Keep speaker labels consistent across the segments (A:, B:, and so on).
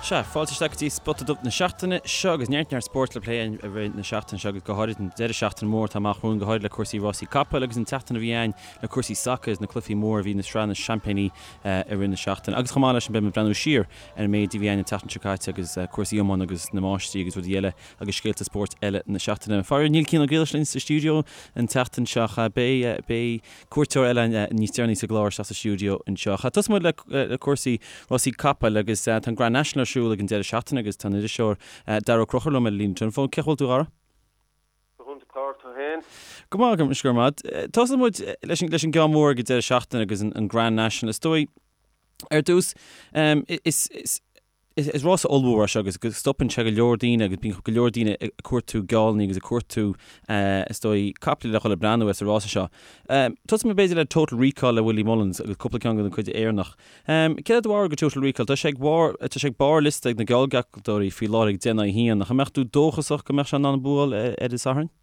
A: Sea, fáilte isteach go dtí Spota Dubh na seachtaine seo agus neart neart spóirt le plé i rith na seachtaine seo agus go háirid an deireadh seachtaine mór atá amach romhainn, go háirid le cúrsaí rásaí capaill agus an tseachtain a bhí ann le cúrsaí sacair agus na cluichí móra a bhí na sraith na seaimpíní i rith na seachtaine. Agus chomh maith leis sin beidh muid ag breathnú siar ar an méid a bhí ann an tseachtain seo caite agus cúrsaí iomána agus na máistrí agus rudaí eile agus scéalta spóirt eile na seachtaine. Faraor níl Cian Ó Griallais linn sa stiúideo an tseachtain seo ach beidh beidh cuairteoir eile níos deireanaí sa gclár isteach sa stiúideo anseo. Tosóidh muid le cúrsaí rásaí capaill agus tá an Grand National ar siúl ag an deireadh seachtaine agus tá an iriseoir Daragh Ó Conchúir liom ar an líne teileafóin. Cén chaoi a bhfuil tú, a Dhara?
B: Go hiontach, Páraic, tú féin?
A: Go maith, go raibh maith. Tosóidh muid leis an gceann mór ag an deireadh seachtaine agus an Grand National. Is dóigh, ar dtús, is Is rása ollmhór é seo agus go stopann sé go leor daoine agus bíonn go leor daoine ag cuartú geallanna agus ag cuartú is dóigh caiple le dhul ag breathnú ar sa rása seo. Tosóidh mé b'fhéidir le Total Recall le Willie Mullins agus cúpla ceann den chuid Éireannach. Céard é do bharúil go Total Recall? Tá sé ag barr tá sé ag barr liosta ag na geallghealltóirí faoi láthair ag 10 in aghaidh 1. Ach an mbeadh tú dóchasach go mbeadh sé in ann an bua a fháil ar an Satharn?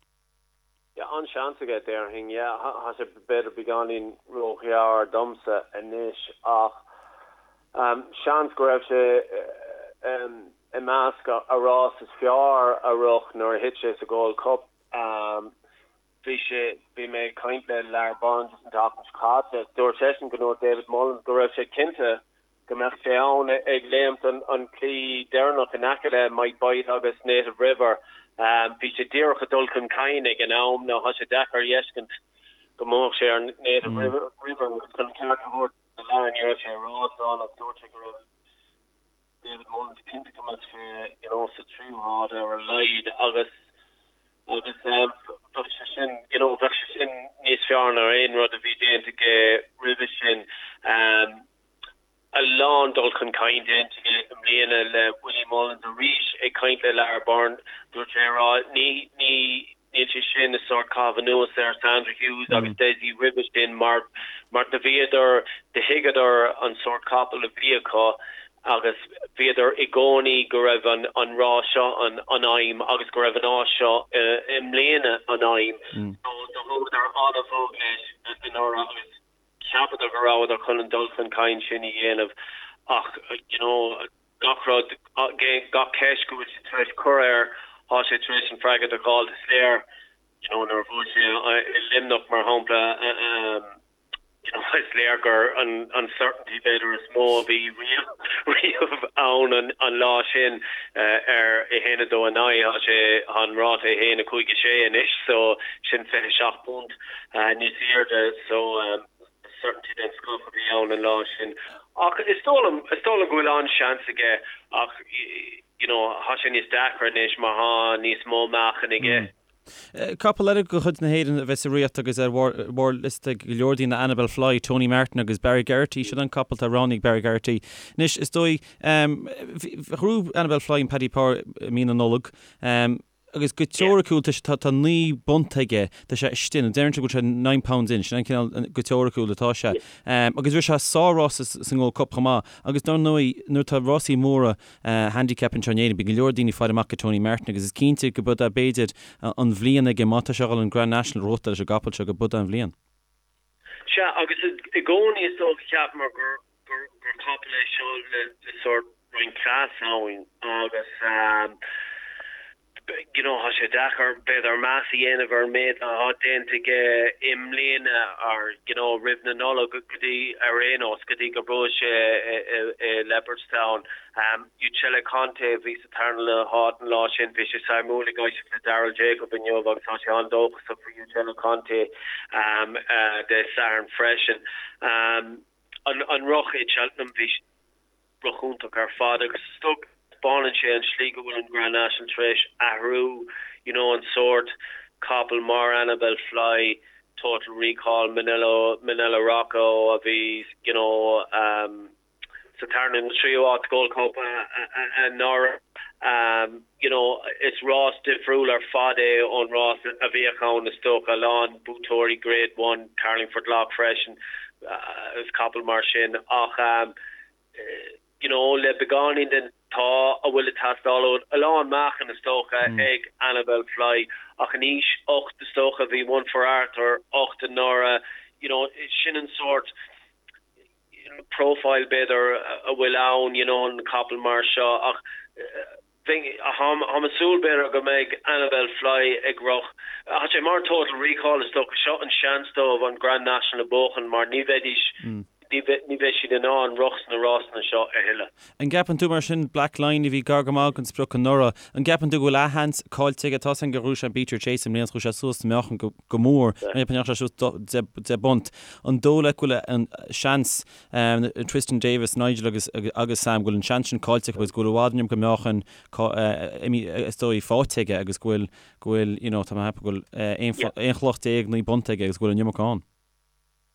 B: Yeah, an-seans aige, déarfainn. Yeah, tá sé b'fhéidir beagáinín róghearr domsa anois ach seans go raibh sé i measc a rás is fearr a rith nuair a thit sé sa Gold Cup. Bhí sé, bhí mé ag caint le Lar Burns an tseachtain seo caite, dúirt seisean go ndúirt David Mullins go raibh sé cinnte go mbeadh sé ann ag léimt an claí deireanach in aice le Might Bite agus Native River. Bhí sé díreach ag dul chun cinn ag an am. Now tá sé deacair a fheiscint go mbuafadh sé ar Native River agus chun an ceart a thabhairt do Lar ní raibh sé i rás ann ach dúirt sé go raibh David Mullins cinnte go mbeadh sé you know sa tríú háit ar a laghad agus agus bheadh sé sin you know bheadh sé sin níos fearr ná aon rud a bhí déanta aige roimhe sin. A lán dul chun cinn déanta aige i mbliana le Willie Mullins arís ag caint le Lar Byrne dúirt sé a rá ní ní níl sé sin ag sórt caitheamh anuas ar Sandra Hughes agus Dessie roimhe sin mar mar do bhíodar do thuigeadar an sórt capall a bhí acu agus bhíodar i gcónaí go raibh an an rás seo an an aidhm agus go raibh an áit seo i mbliana an aidhm so do thógadar an-bhog leis anuraidh agus Cheapadar go rabhadar chun an dul chun cinn sin a dhéanamh ach you know gach rud, gach ceist go bhfuil siad tar éis cur air, tá sé tar éis an freagairt a fháil. Is léir you know nuair a bhuaigh sé i Luimneach mar shampla you know is léir gur an an certainty b'fhéidir is mó a bhí riamh riamh ann an an lá sin ar 1 2 9 tá sé an ráta 1 5 6 anois so sin 27 punt. níos airde so certainty den scoth a bhí ann an lá sin. Ach is dóigh liom, is dóigh liom go bhfuil an-seans aige ach you know tá sé níos deacra anois mar tá níos mó meáchain aige.
A: Capall eile de chuid na hÉireann a bheas sa rith agus ar bharr liosta ag go leor daoine Anibale Fly, Tony Martin agus Barry Geraghty. Sin an capall atá roghnaithe ag Barry Geraghty. Anois is dóigh, ghnóthaigh Anibale Fly an Paddy Power i mí na Nollag. Agus go teoiriciúil tá sé, tá 9 bpunt aige, tá sé istigh, nó deireann sé go bhfuil sé nine pounds in, sin an cineál, go teoiriciúil atá sé. Agus rith sé sár-rás sa nGold Cup chomh maith. Agus dar ndóigh, nuair atá rásaí móra handicap anseo in Éirinn, bíonn go leor daoine ag faire amach go Tony Martin agus is cinnte go b'é b'fhéidir an bhliain aige, má tá sé a dhul an Grand National a ghnóthachtáil leis an gcapall seo, go b'é an bhliain.
B: Sea, agus i gcónaí is dócha cheapamar gur gur capall é seo le sórt roinnt cleas ann agus you know tá sé deacair b'fhéidir meas a dhéanamh ar an méid atá déanta aige i mbliana or you know roimh na Nollag go dtí ar aon nós go dtí gur bhuaigh sé i Leopardstown. Uccello Conte a bhí sa tarna háit an lá sin bhí sé suimiúil ag éisteacht le Daryl Jacob inniu agus tá sé an-dóchasach faoi Uccello Conte Dé Sathairn freisin. An rith i Cheltenham, bhí rith iontach ar fad agus is dócha taispeánann sé an slí go bhfuil an Grand National tar éis athrú, you know an sórt capall mar Anibale Fly, Total Recall, Minella, Minella Rocco a bhí you know um, sa tarna nó tríú háit Gold Cup anuraidh. You know, is rás difriúil ar fad é ón rás a bhíodh ann is dócha, a lán buaiteoirí Grade One, Carlingford Lough freisin agus capaill mar sin ach you know, le beagáinín den t-ádh a bhfuil ag teastáil uait, a lán meáchain is dócha ag Anibale Fly ach in aois 8 is dócha, bhí One For Arthur 8 anuraidh, you know, sin an sórt. profile b'fhéidir a bhfuil ann you know an capall mar seo ach táim ag súil b'fhéidir go mbeidh Anibale Fly ag rith. Tá sé mar Total Recall is dócha seo an seans dóibh an Grand National a bhuachan mar ní bheidís ní bheidh siad in ann rith sna rásanna seo a thuilleadh.
A: An gceapann tú mar sin, Black Line a bhí gar go maith don sprioc anuraidh, an gceapann tú go bhfuil a sheans caillte aige? Tá's againn gur ghnóthaigh sé an Beater Chase i mbliana is chuaigh sé suas sa meáchan go mór, ní dheachaigh sé suas 10 bpunt. An dóigh leat go bhfuil an seans, Twiston-Davies, Nigel agus agus Sam, go bhfuil an seans sin caillte acu agus go bhfuil i bhfad an iomarca meáchain is dóigh faighte aige agus go bhfuil, go bhfuil, you know, tá mé ag ceapadh go bhfuil 11 chloch 9 bpunt aige agus go bhfuil an iomarca ann?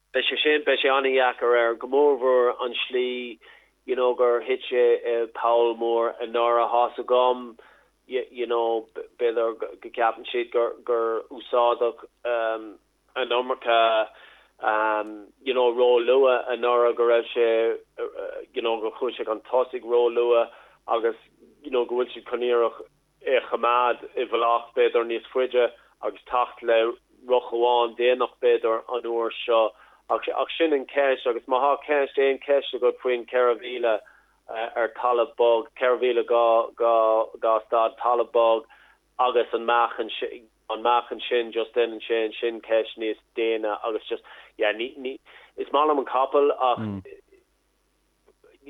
B: Beidh sé sin, beidh sé an-dheacair air, go mórmhór an slí you know gur thit sé i poll mór anuraidh. Tá's agam you know b'fhéidir go gceapann siad gur gur úsáideadh an iomarca you know ró-luath anuraidh, go raibh sé you know gur chuaigh sé chun tosaigh ró-luath agus you know go bhfuil siad chun iarraidh é a choimeád i bhfolach b'fhéidir níos faide agus teacht le rith amháin déanach b'fhéidir an uair seo ach ach sin an cheist agus má thá ceist, aon cheist agat faoin 4,000 ar talamh bog, 4,000 2 stad talamh bog agus an meáchan an meáchan sin just déanann sé ansin ceist níos déine agus just yeah ní ní is maith liom an capall ach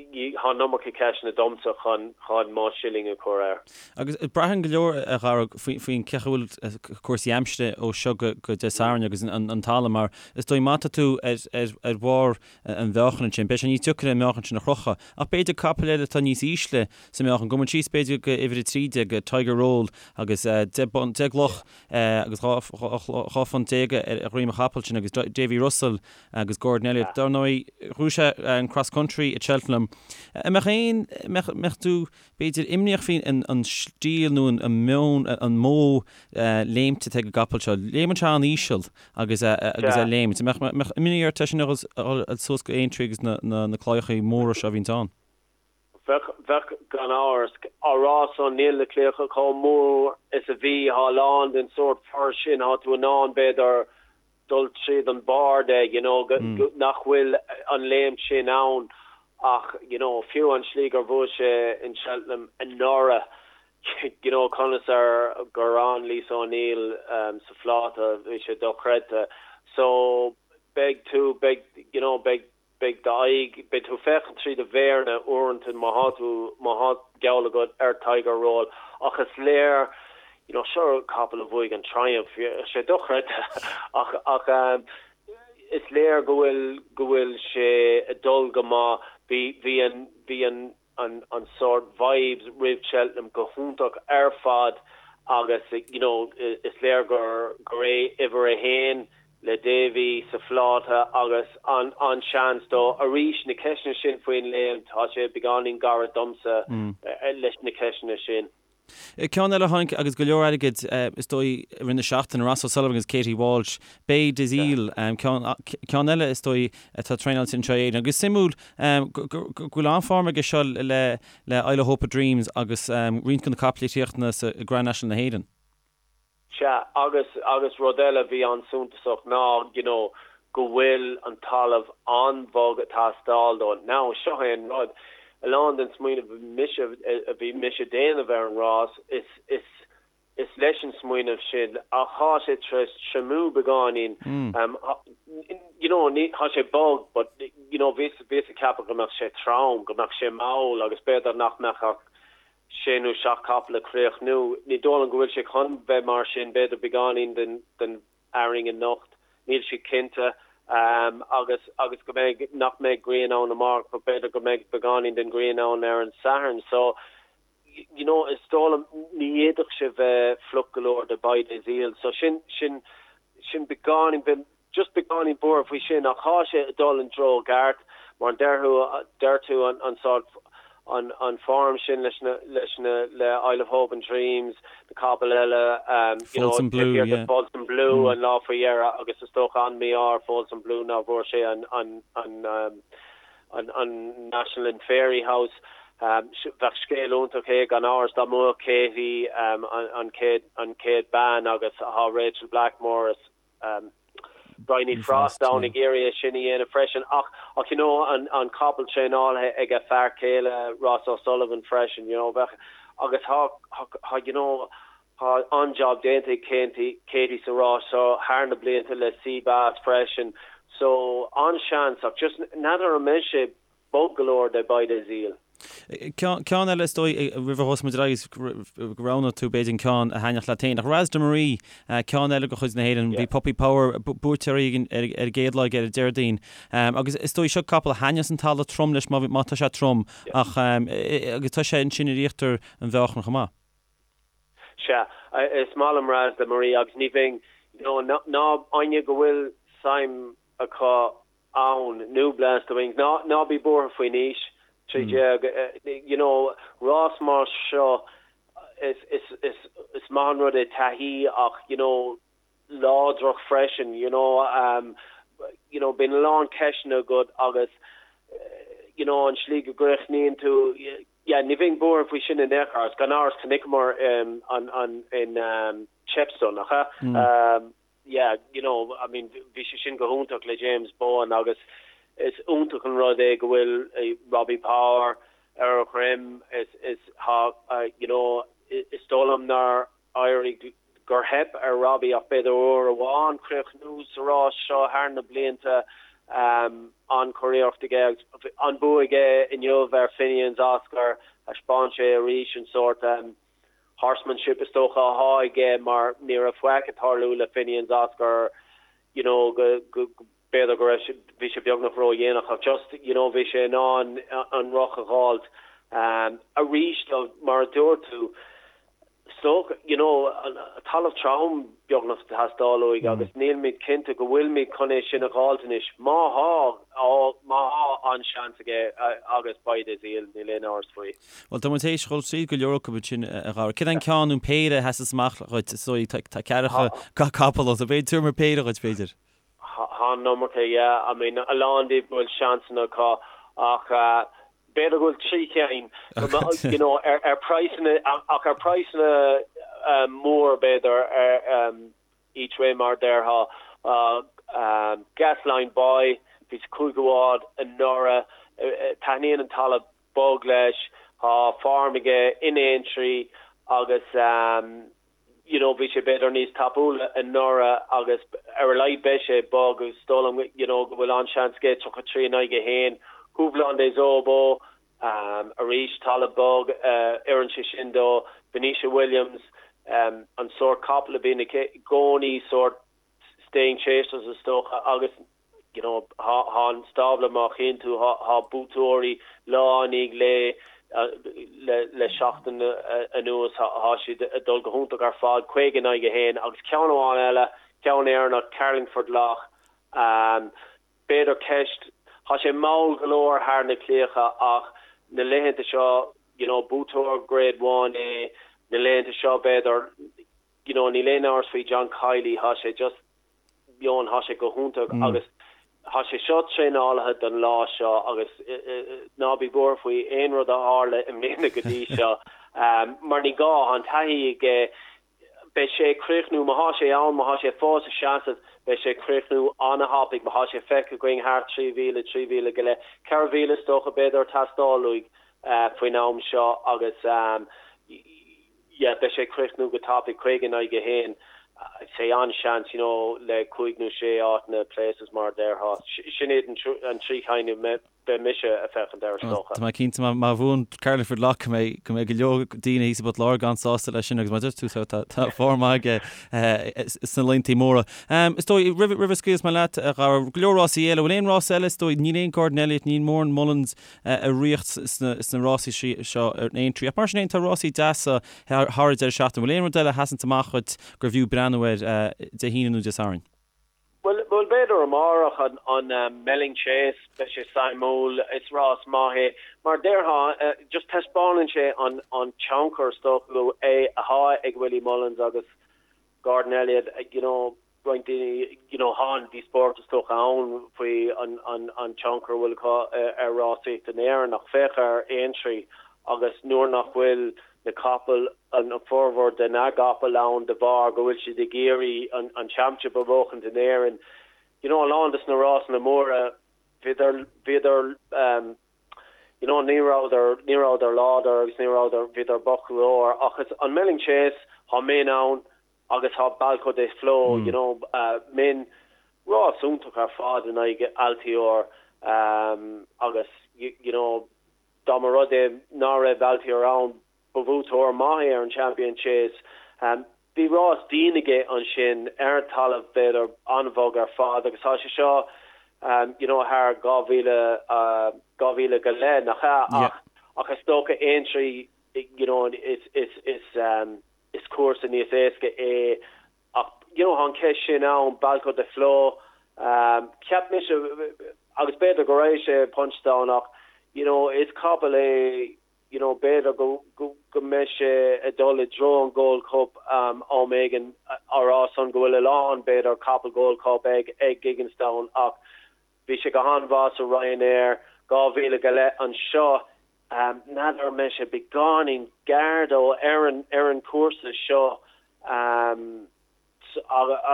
B: Tá an iomarca ceisteanna domsa chun chun mo shilling a chur air.
A: Agus braitheann go leor, a Dharragh, faoin cén chaoi a bhfuil cúrsaí aimsire ó seo go Dé Sathairn agus an talamh mar is dóigh má tá tú ar bharr an mheáchain ansin, beidh sé níos deacair an meáchan sin a chrochadh. Ach b'fhéidir capall eile atá níos ísle sa meáchan, gabhfaidh muid síos b'fhéidir go uimhir 13, Tiger Roll agus 10 gcloch agus 12 phunt ar dhroim an chapaill sin agus Davy Russell agus Gordon Elliott. Dar ndóigh, ghnóthaigh sé an Cross Country i Cheltenham. An mbeadh aon, mbeadh, mbeadh tú, b'fhéidir, imníoch faoi an stíl nó an meon, an modh léimte atá ag an gcapall seo? Léimeann sé an-íseal agus agus é ag léimt. An mbeadh, mbeadh imní ort é sin a dhul suas go Aintree agus na, na, na claíochaí móra seo a bhíonns ann?
B: Bheadh, bheadh, gan amhras. Á rá san, níl na claíocha chomh mór is a bhí, thá a lán den sórt fur sin, thá tú in ann, b'fhéidir, dul tríd an barr de, you know, nach bhfuil an léimt sin ann ach, you know, fiú an slí gur bhuaigh sé in Cheltenham anuraidh, you know, conas ar gur fhan Lisa O'Neill sa phláta, bhí sé dochreidte. So, beidh tú, beidh, you know, beidh Beidh d'aghaidh, beidh tú ag féachaint trí do mhéaranna uaireanta má thá tú, má thá geall agat ar Tiger Roll ach is léir, you know, seo capall a bhuaigh an Triumph, sé dochreidte ach, ach is léir go bhfuil, go bhfuil sé ag dul go maith. Bhí, bhí an, bhí an, an an sórt vibes roimh Cheltenham go hiontach ar fad agus you know is léir gur gur é uimhir a haon le Davy sa phláta agus an an seans dó arís na ceisteanna sin faoin léim tá sé beagáinín gairid domsa leis na ceisteanna sin.
A: Ceann eile a tháinig agus go leor airgid is dóigh i rith na seachtaine, Ross O'Sullivan agus Katie Walsh, Baie Des Iles, ceann eile is dóigh atá traenáilte anseo in Éirinn. Agus suimiúil go bhfuil an-form aige seo le Isle of Hope and Dreams agus roinnt de na caiple a chríochnaigh sa Grand National na hÉireann.
B: Sea, agus, agus rud eile a bhí an-suntasach ná, you know, go bhfuil an talamh an-bhog ag teastáil dó. Now, seo é an rud, a lán den smaoineamh a bhí mise, a bhí mise ag déanamh ar an rás, is, is, is leis an smaoineamh sin, ach thá sé tar éis triomú beagáinín, you know, ní, thá sé bog, but, you know, bhíos, bhíos ag ceapadh go mbeadh sé trom, go mbeadh sé mall agus b'fhéidir nach mbeadh ach sé nó seacht capall ag críochnú. Ní dóigh liom go bhfuil sé chun bheith mar sin, b'fhéidir beagáinín den den arraing anocht, níl siad cinnte, agus agus go mbeidh, nach mbeidh grian ann amárach but b'fhéidir go mbeidh beagáinín den ghrian ann ar an Satharn. So, you know, is dóigh liom, ní fhéadfadh sé bheith fliuch go leor do Baie Des Iles. So sin, sin, sin beagáinín, just beagáinín buartha faoi sin ach thá sé ag dul an treo ceart mar deir tú deir tú an an sórt an an form sin leis na leis na le Isle of Hope and Dreams na capaill eile um you know
A: Folsom Blue yeah.
B: Folsom Blue mm. an lá faoi dheireadh agus is dócha an mí-ádh ar Folsom Blue ná bhfuair sé an an an um, an an National in Fairyhouse um, bheadh scéal iontach é gan amhras dá mbuafadh Katie um, an, an chéad an chéad bean agus thá Rachel Blackmore is. Bryony Frost ann ag iarraidh é sin a dhéanamh freisin ach ach you know an an capall traenáilte ag a fear céile Ross O'Sullivan freisin you know bheadh agus thá thá you know thá an-job déanta ag Katie Katie sa rás seo thar na blianta le Sea Bass freisin so an-seans ach just n'fheadar an mbeidh sé bog go leor do Baie Des Iles.
A: Ceann eile is dóigh roimh a thosóidh muid ar aghaidh go roghnóidh tú b'fhéidir an ceann a thaitneodh leat féin. Ach Ras de Marie, ceann eile de chuid na hÉireann, bhí Puppy Power buaite ar an gcéad lá aige ar an Déardaoin. Agus is dóigh seo capall a thaitneos an talamh trom leis má tá sé trom ach agus tá sé ansin ar íochtar an mheáchain chomh maith.
B: Sea, is maith liom Ras de Marie agus ní bheinn, you know, ná éinne go bhfuil suim acu ann, nó Blast the Wings, ná, ná bí buartha faoin aois, 13, you know, rás mar seo, is, is, is, is maith an rud é taithí ach, you know, láidreacht freisin, you know, um, you know, bíonn a lán ceisteanna agat agus, you know, an slí go gcríochnaíonn tú, yeah, ní bheinn buartha faoi sin in aon chor, agus gan amhras chonaiceamar um, an, an, in um, Chepstow, nach ea? Mm. Um, yeah, you know, I mean, bhí sé sin go hiontach le James Bowen agus is iontach an rud é go bhfuil Robbie Power ar a dhroim, is, is, thá, you know, is dóigh liom nár éirigh, gur theip ar Robbie ach b'fhéidir uair amháin críochnú sa rás seo thar na blianta, an-churiarracht aige agus an bua aige inniu ar Finian's Oscar, thaispeáin sé arís an sórt horsemanship is dócha athá aige mar ní raibh faic ag tarlú le Finian's Oscar you know go go b'fhéidir go raibh sé bhí sé beagnach ródhéanach ach just you know bhí sé in ann an roth a dh'fháilt arís though mar a dúirt tú So, you know, talamh trom beagnach ag teastáil uaidh agus nílimid cinnte go bhfuilimid chun é sin a dh'fháilt anois. Má thá, má thá an-seans aige agus Baie des Iles, níl aon amhras faoi.
A: Bhuel, tá muid théis dhul tríd go leor acu ansin, a Dhara. Céard é an ceann nó an péire a sheasas amach dhuit? Is dóigh, tá ceathracha capall ann, so b'fhéidir tabhair péire dhuit, b'fhéidir.
B: Thá an iomarca, yeah. I mean, a lán díobh go bhfuil seansanna acu ach b'fhéidir go bhfuil 3 cheann, you know, ar ar praghsanna, ach ar praghsanna mór b'fhéidir ar each way mar a déarfá. Gasline Boy, bhí sa chúigiú háit anuraidh, taitníonn an talamh bog leis, tá form aige in Aintree agus you know bhí sé b'fhéidir níos tapúla anuraidh agus ar a laghad beidh sé bog agus is dóigh liom you know go bhfuil an-seans aige 33 in aghaidh 1. Houblon Des Obeaux arís talamh bog oireann sé sin dó. Venetia Williams an sórt capall a bhíonn aici i gcónaí sórt staying chasers is dócha agus you know thá an stábla má chíonn tú thá buaiteoirí lá i ndiaidh lae le le seachtain anuas thá siad ag dul go hiontach ar fad 50 in aghaidh 1 agus ceann amháin eile ceann Éireannach Carlingford Lough um, b'fhéidir ceist thá sé mall go leor thar na claíocha ach na laethanta seo you know buaiteoir grade 1 é na laethanta seo b'fhéidir you know níl aon amhras faoi John Kiely thá sé just Eoin, thá sé go hiontach agus thá sé seo traenáilte don lá seo agus ná bí buartha faoi aon rud a tharla i mbliana go dtí seo mar ní gá, thá an taithí aige, beidh sé ag críochnú, má thá sé ann, má thá sé fós ag seasamh, beidh sé ag críochnú ana-thapaidh, má thá sé feicthe againn thart 3,000, 3,000 go leith, 4,000 is dócha b'fhéidir ag teastáil uaidh faoin am seo agus yeah beidh sé ag críochnú go tapaidh, 50 in aghaidh 1, sé an-seans you know le cúig nó sé áiteanna places mar a déarfá. Sin iad an trí cheann a mbeidh mise ag féachaint air is dócha.
A: Tá mé cinnte má bhuann Carlingford Lough go mbeidh go mbeidh go leor daoine thíos i bPort Láirge an-sásta leis sin agus mar a dúirt tú tá tá form maith aige sna laethanta móra. Is dóigh roimh roimh a scaoilfeas mé leat a Dhara, go leor rásaí eile, bhfuil aon rás eile is dóigh níl aon Gordon Elliott, níl mórán Mullins ag ritheacht sna rásaí seo ar Aintree. Ach mar sin féin, tá rásaí deasa thar an deireadh seachtaine. Bhfuil aon rud eile a sheasanns amach dhuit gurbh fhiú breathnú air Dé hAoine nó Dé Sathairn?
B: Bhuel, b'fhéidir amárach an Melling Chase, beidh sé suimiúil, is rás maith é. Mar a déarfá, just taispeánann sé an tionchar is dócha é atá ag Willie Mullins agus Gordon Elliott, you know, roinnt daoine, you know, thá an díospóireacht is dócha ann faoi an, an, an tionchar a bhfuil acu ar rásaíocht in Éirinn ach féach ar Aintree agus nuair nach bhfuil na capaill, an formhór de na gcapall ann de bharr go bhfuil siad ag iarraidh an, an championship a bhuachaint in Éirinn. you know, a lán des na rásanna móra, bhíodar, bhíodar, um, you know, ní rabhadar, ní rabhadar láidir agus ní rabhadar, bhíodar bocht go leor ach is an Melling Chase, tá Min ann agus tá Balko Des Flos, you know, uh, Min, rás iontach ar fad in aghaidh Altior, um, agus, you, you know, dá mba rud é ná raibh Altior ann, Ba bhuaiteoir maith é ar an Champion Chase. Bhí rás dian aige ansin ar talamh b'fhéidir an-bhog ar fad agus tá sé seo you know thar 2,000, 2,000 go leith, nach ea? Ach ach is dócha Aintree you know is is is is cúrsa níos éasca é ach you know tá an cheist sin ann, Balko Des Flos, cheap mise agus b'fhéidir go raibh sé Punchestown ach you know is capall é you know b'fhéidir go go mbeidh sé ag dul i dtreo an Gold Cup am éigin, á rá san go bhfuil a lán b'fhéidir capall Gold Cup ag ag Gigginstown ach bhí sé go han-mhaith sa Ryanair 2,000 go leith anseo n'fheadar an mbeidh sé beagáinín gearr dó ar an ar an chúrsa seo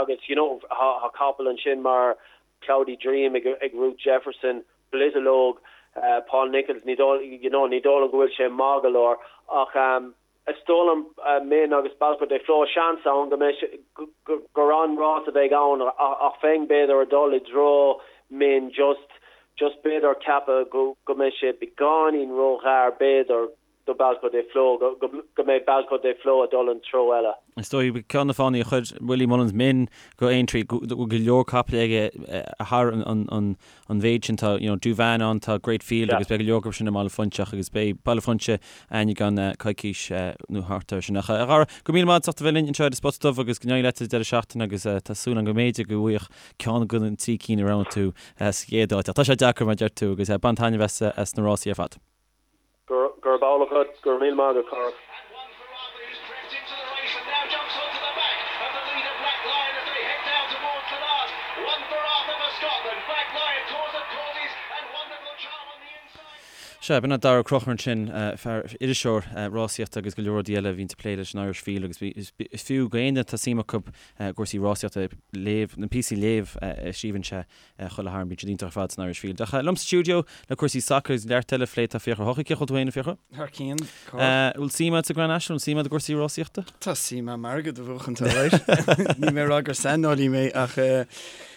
B: agus you know tá capall ansin mar Cloudy Dream ag ag Ruth Jefferson, Blittelogue, Paul Nicholls, ní dóigh you know ní dóigh liom go bhfuil sé maith go leor ach is dóigh liom Min agus Balko Des Flos seans ann go mbeidh sé gur an-rás a bheidh ann ach bheinn b'fhéidir ag dul i dtreo Min just just b'fhéidir ceapadh go go mbeidh sé beagáinín róghearr b'fhéidir do Balko Des Flos, go mbeidh Balko Des Flos ag dul an treo eile.
A: Is dóigh, ceann de na fáthanna a chuir Willie Mullins Min go Aintree, go bhfuil go leor capaill aige thar an mhéid sin. Tá, you know, Douvan ann, tá Great Field agus beidh go leor acu sin i mBaile Phúinse agus beidh Baile Phúinse againn i gceann coicís nó thart air sin. Ach a Dhara, go raibh míle maith agat as ucht a bheith linn anseo ar an Spota Dubh agus go n-éirí leat sa deireadh seachtaine agus tá súil agam go mb'fhéidir go bhfaigheadh ceann de na trí cinn a roghnaigh tú sa chéad áit. Ach tá sé deacair mar a deir tú agus bain taitneamh as na rásaí ar fad.
B: Gurb amhlaidh agat, go raibh míle maith agat, Cárthach.
A: Sea, b'in é Daragh Ó Conchúir ansin, fear, iriseoir rásaíochta agus go leor rudaí eile a bhíonns ag plé leis an Irish Field agus is fiú go éinne atá suim acu i gcúrsaí rásaíochta léamh, na píosaí a léamh a scríobhann sé. Chuile thar, bíonn siad iontach ar fad san Irish Field. Ach liom sa stiúideo le cúrsaí sacair agus neart eile a phlé tá Fiachra Ó hEochaidh. Cén chaoi a bhfuil tú féin, a Fhiachra?
C: Thar cionn, Cárthach.
A: Bhfuil suim agat sa Grand National? Bhfuil suim agat i gcúrsaí rásaíochta?
C: Tá suim agam airgead a bhuachan, alright. Níl mé ag rá gur saineolaí mé ach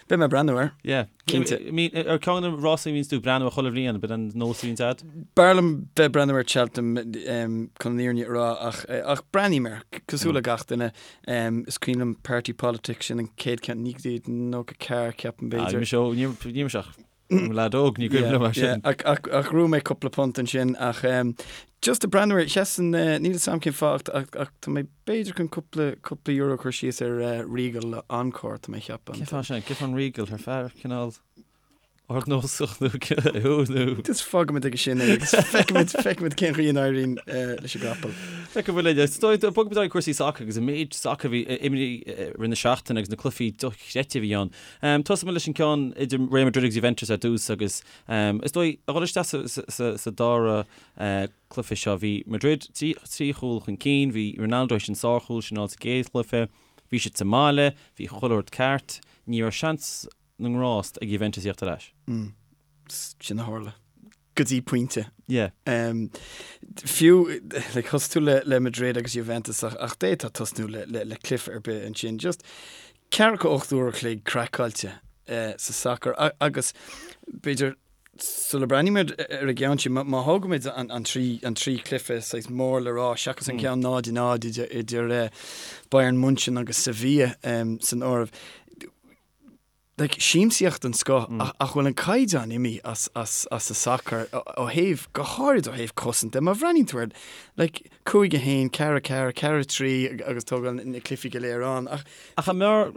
C: beidh mé ag breathnú air.
A: Yeah. Cinnte. Ar ceann de na rásaí a bhíonns tú ag breathnú air chuile bhliain, b'in an nós a bhíonns agat?
C: B'fhearr liom bheith ag breathnú ar Cheltenham chun an fhírinne a rá ach ach breathnaím air, cosúil le gach duine. Is cuimhin liom Party Politics, sin an chéad cheann, 1994, ceapaim,
A: b'fhéidir. Bhí mise óg, ní raibh mise ach i mo leaid óg, ní cuimhin liom é sin.
C: Ach ghnóthaigh mé cúpla punt ansin ach just ag breathnú air, sheasann, níl 'fhios a'm cén fáth ach ach tá mé b'fhéidir chun cúpla cúpla euro a chur síos ar Regal le Encore, tá mé ag ceapadh.
A: Cén fáth sin? Cén fáth an Regal? Ar fear cineál ardnósach nó thú
C: nó. Just fágfaimid aige sin é agus feicfimid feicfimid cén chaoi a n-éiríonn leis an gcapall.
A: Feicfimid linn. Is dóigh bogfaimid ar aghaidh cúrsaí sacair agus an méid sacair a bhí imeartha i rith na seachtaine agus na cluichí dochreidte a bhí ann. Tosóidh muid leis an gceann idir Real Madrid agus Juventus ar dtús agus is dóigh a dhul isteach sa dara cluiche seo bhí Madrid trí chúl chun cinn, bhí Ronaldo théis an sárchúl sin a fháil sa gcéad chluiche, bhí siad sa mbaile, bhí chuile rud ceart, ní raibh seans na ngrást ag Juventus a thíocht ar ais.
C: Sin a tharla. Go dtí pointe.
A: Yeah.
C: Fiú, like, thosaigh tú le, le Madrid agus Juventus ach, ach d'fhéadfá tosnú le, le, le cluiche ar bith ansin. Just ceathracha 8 uair a chloig craiceáilte eh, sa sacar agus b'fhéidir sula breathnaímid ar an gceann sin, má thógaimid an, an trí, an trí chluiche saghas mór le rá seachas an ceann 0 0 idir, idir eh, Bayern München agus Sevilla um, san áireamh, like, siamsaíocht den scoth ach ach bhfuil an caighdeán imithe as as as an sacar ó thaobh, go háirid ó thaobh cosaint de. Má bhreathnaíonn tú air, like, 5 1, 4 4, 4 3 agus tógáil na cluichí go léir ann
A: ach. Ach an mb'fhearr,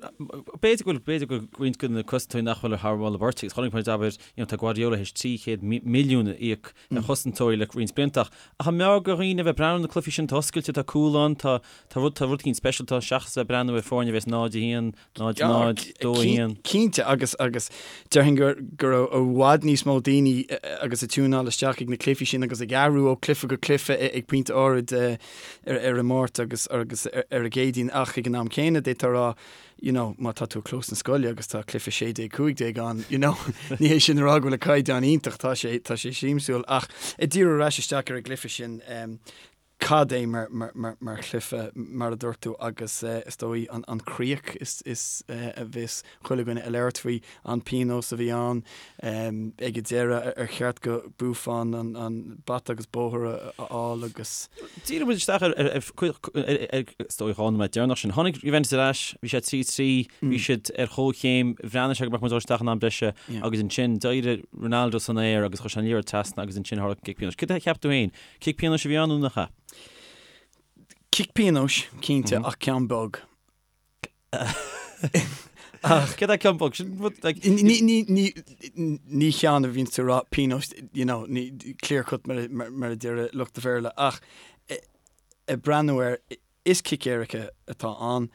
A: b'fhéidir go bhfuil, b'fhéidir go bhfuil roinnt de na cosantóirí nach bhfuil thar mholadh beirte agus chonaic muid, abair, you know, tá Guardiola théis 300 milliún a íoc ar chosantóirí le roinnt blianta ach ach an mb'fhearr do dhaoine a bheith ag breathnú ar na cluichí sin, tá oscailte, tá cúl ann, tá tá rud tá rud éicint speisialta seachas a bheith ag breathnú ar foirne a bheas 0 1, 0 0, 2 1.
C: Cinnte. Cinnte, agus agus déarfainn go go raibh i bhfad níos mó daoine agus ag tiúnáil isteach ag na cluichí sin agus ag athrú ó cluiche go cluiche ag pointe áirid ar ar an Máirt agus agus ar an gCéadaoin ach ag an am céanna d'fhéadfá a rá you know má tá tú ag clós na scoile agus tá cluiche 16 15 ann you know ní hé sin a rá go bhfuil an caighdeán iontach tá sé tá sé siamsúil ach ag díriú ar ais isteach ar an gcluiche sin Cad é mar chluiche, mar a dúirt tú, agus is dóigh an chríoch is a bheas chuile dhuine ag labhairt faoi, an pionós a bhí ann ag an deireadh, ar cheart do Buffon an bata agus bóthar a fháil agus.
A: Díreoidh muid isteach ar is dóigh an nóiméad deireanach sin. Tháinig Juventus ar ais, bhí sé 3-3, bhí siad ar chomhchéim, bhreathnaigh sé go mbeadh muid ag dul isteach in am breise agus ansin d'éirigh Ronaldo san aer agus chuir sé an liathróid trasna agus ansin tharla an cic pionóis. Cad a cheap tú féin? Cic pionóis a bhí ann nó nach ea?
C: Cic pionóis, cinnte, ach ceann beag.
A: Ach céard é ceann beag? Sin rud,
C: like. Ní, ní, ní, ní ceann a bhíonns tú ag rá pionós, you know, ní, clear cut mar, mar, mar a deir lucht an Bhéarla, ach ag breathnú air, is cic éirice atá ann,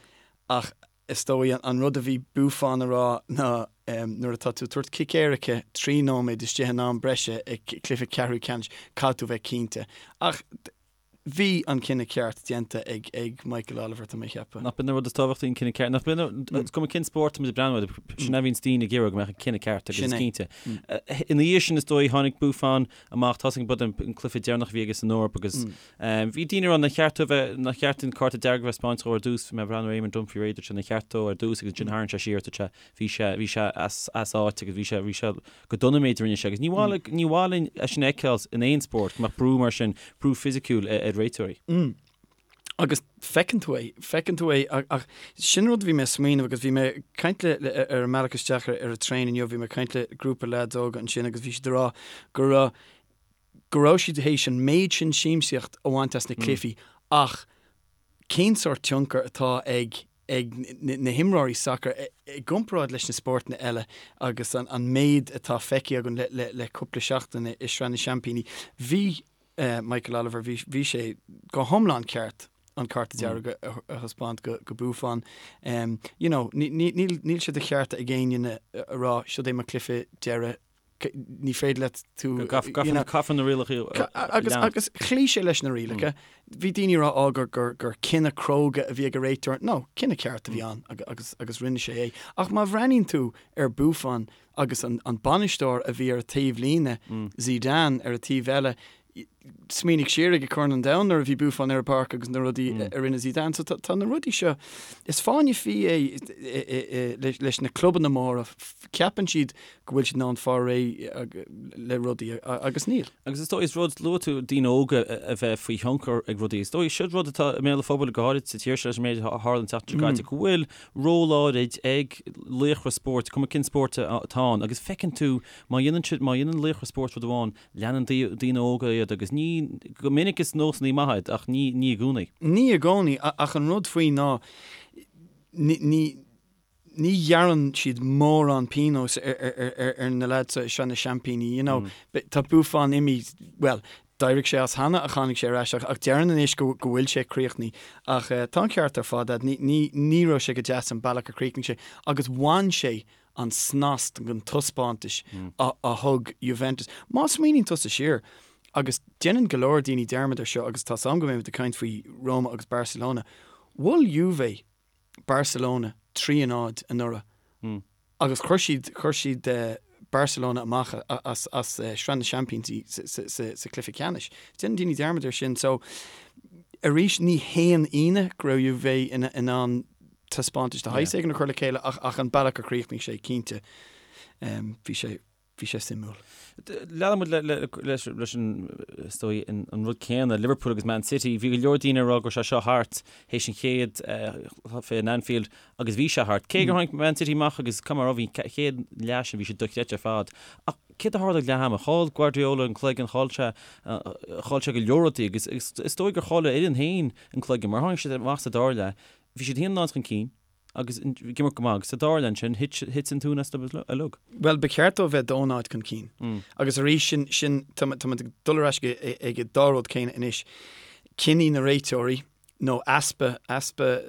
C: ach Is dóigh an rud a bhí Buffon a rá ná nuair atá tú ag tabhairt cic éirice 3 nóiméad istigh in am breise i gcluiche ceathrú ceannais, caithfidh tú bheith cinnte. Ach bhí an cinneadh ceart déanta ag ag Michael Oliver, tá mé a cheapadh.
A: Nach b'in an rud is tábhachtaí an cinneadh ceart? Nach b'in is cuma cén spórt tá muid ag breathnú air, sin a bhíonns daoine ag iarraidh go mbeadh an cinneadh ceart agus is cinnte. Ina dhiaidh sin is dóigh tháinig Buffon amach, tá a fhios againn b'in an cluiche deireanach a bhí aige san Eoraip agus Bhí daoine ag rá nár cheart dó a bheith, nár cheart an cárta dearg a bheith spáinte dó ar dtús, bhí mé ag breathnú ar Eamon Dunphy dúirt sé nár cheart dó ar dtús agus ansin tharraing sé siar, dúirt sé, bhí sé, bhí sé as, as áit agus bhí sé, bhí sé go dona an méid a rinne sé agus ní mhaith, ní mhaith linn é sin a fheiceáil in aon spórt, go mbeadh brú mar sin, brú fisiciúil ar réiteoirí.
C: Agus feiceann tú é, feiceann tú é ach sin rud a bhí mé ag smaoineamh agus bhí mé ag caint le, le, ar an mbealach isteach ar, ar an traein inniu, bhí mé ag caint le grúpa leaids óga ansin agus bhí siad ag rá go raibh, go raibh siad théis an méid sin siamsaíocht a bhaint as na cluichí ach cén sórt tionchar atá ag ag na himreoirí sacair i gcomparáid leis na spórtanna eile agus an méid atá feicthe againn le le cúpla seachtain i Sraith na Seaimpíní. Bhí Michael Oliver, bhí bhí sé go hiomlán ceart an cárta dearg a thaispeáint go go Buffon. You know, níl níl sé de cheart ag éinne a rá siod é mo chluiche deiridh ní féidir leat
A: tú Caithfear na rialacha
C: a lean. Agus chloígh sé leis na rialacha. Bhí daoine ag rá á gur gur gur cinneadh cróga a bhí ag an réiteoir. No, cinneadh ceart a bhí ann agus agus rinne sé é. Ach má bhreathnaíonn tú ar Buffon agus an an bainisteoir a bhí ar a taobh líne, Zidane ar a taobh eile, Smaoinigh siar ag Corn an Domhain nuair a bhí Buffon ar an bpáirc agus na rudaí a rinne Zidane. So tá na rudaí seo, is fáinne fí é leis na clubanna móra, ceapann siad go bhfuil siad in ann fáil réidh le rudaí agus níl.
A: Agus is dóigh, is rud, luaigh tú daoine óga a bheith faoi thionchar ag rudaí, is dóigh, siod rud atá i mbéal an phobail go háirid sa tír seo leis an méid a tharla an tseachtain seo caite, go bhfuil ról áirid ag laochra spóirt, cuma cén spórt atá ann, agus feiceann tú má dhéanann siad, má dhéanann laochra spóirt rud amháin, Leanann daoine óga iad agus ní, go minic is nósanna maithe iad ach ní, ní i gcónaí.
C: Ní i gcónaí, ach an rud faoi ná ní, ní, ní ghearrann siad mórán pionóis ar, ar, ar, ar na leaids seo i Sraith na Seaimpíní, you know. Tá Buffon imithe, bhuel, d'éirigh sé as cheana ach tháinig sé ar ais ach, ach deireann anois go, go bhfuil sé críochnaithe. Ach tá an ceart ar fad agat, ní, ní, ní raibh sé go deas an bealach a chríochnaigh sé agus bhain sé an snas den taispeántas a thug Juventus. Má smaoiníonn tusa siar, agus déanann go leor daoine dearmad air seo agus tá's a'm go mbeimid ag caint faoi Roma agus Barcelona, bhuail Juve Barcelona 3 a 0 anuraidh agus chuir siad, chuir siad Barcelona amach as as Sraith na Seaimpíní sa chluiche ceannais. Déanann daoine dearmad air sin. So, arís, ní haon ionadh go raibh Juve in ann taispeántas de shaghas éigin a chur le chéile ach an bealach a chríochnaigh sé, cinnte, bhí sé, bhí sé suimiúil.
A: Leanann muid leis an, is dóigh, an rud céanna, Liverpool agus Man City. Bhí go leor daoine ag rá go raibh sé seo thart théis an chéad chluiche in Anfield agus bhí sé thart. Cé gur tháinig Man City amach agus caithfidh mé a rá, bhí an chéad leath sin, bhí sé dochreidte ar fad. Ach céard a tharla ag leath ama? Chaill Guardiola an cloigeann, chaill sé, chaill sé go leor rudaí agus is dóigh gur chaill a fhoireann féin an cloigeann mar tháinig siad amach sa dara leath Bhí siad 1-0 chun cinn agus ag imirt go maith agus sa dara leath ansin thit an tóin astu uilig.
C: Bhuel, ba cheart dóibh bheith 2-0 chun cinn. Agus arís, sin, sin, tá muid ag dul ar ais ag an dá rud céanna anois, cinní na réiteoirí nó easpa, easpa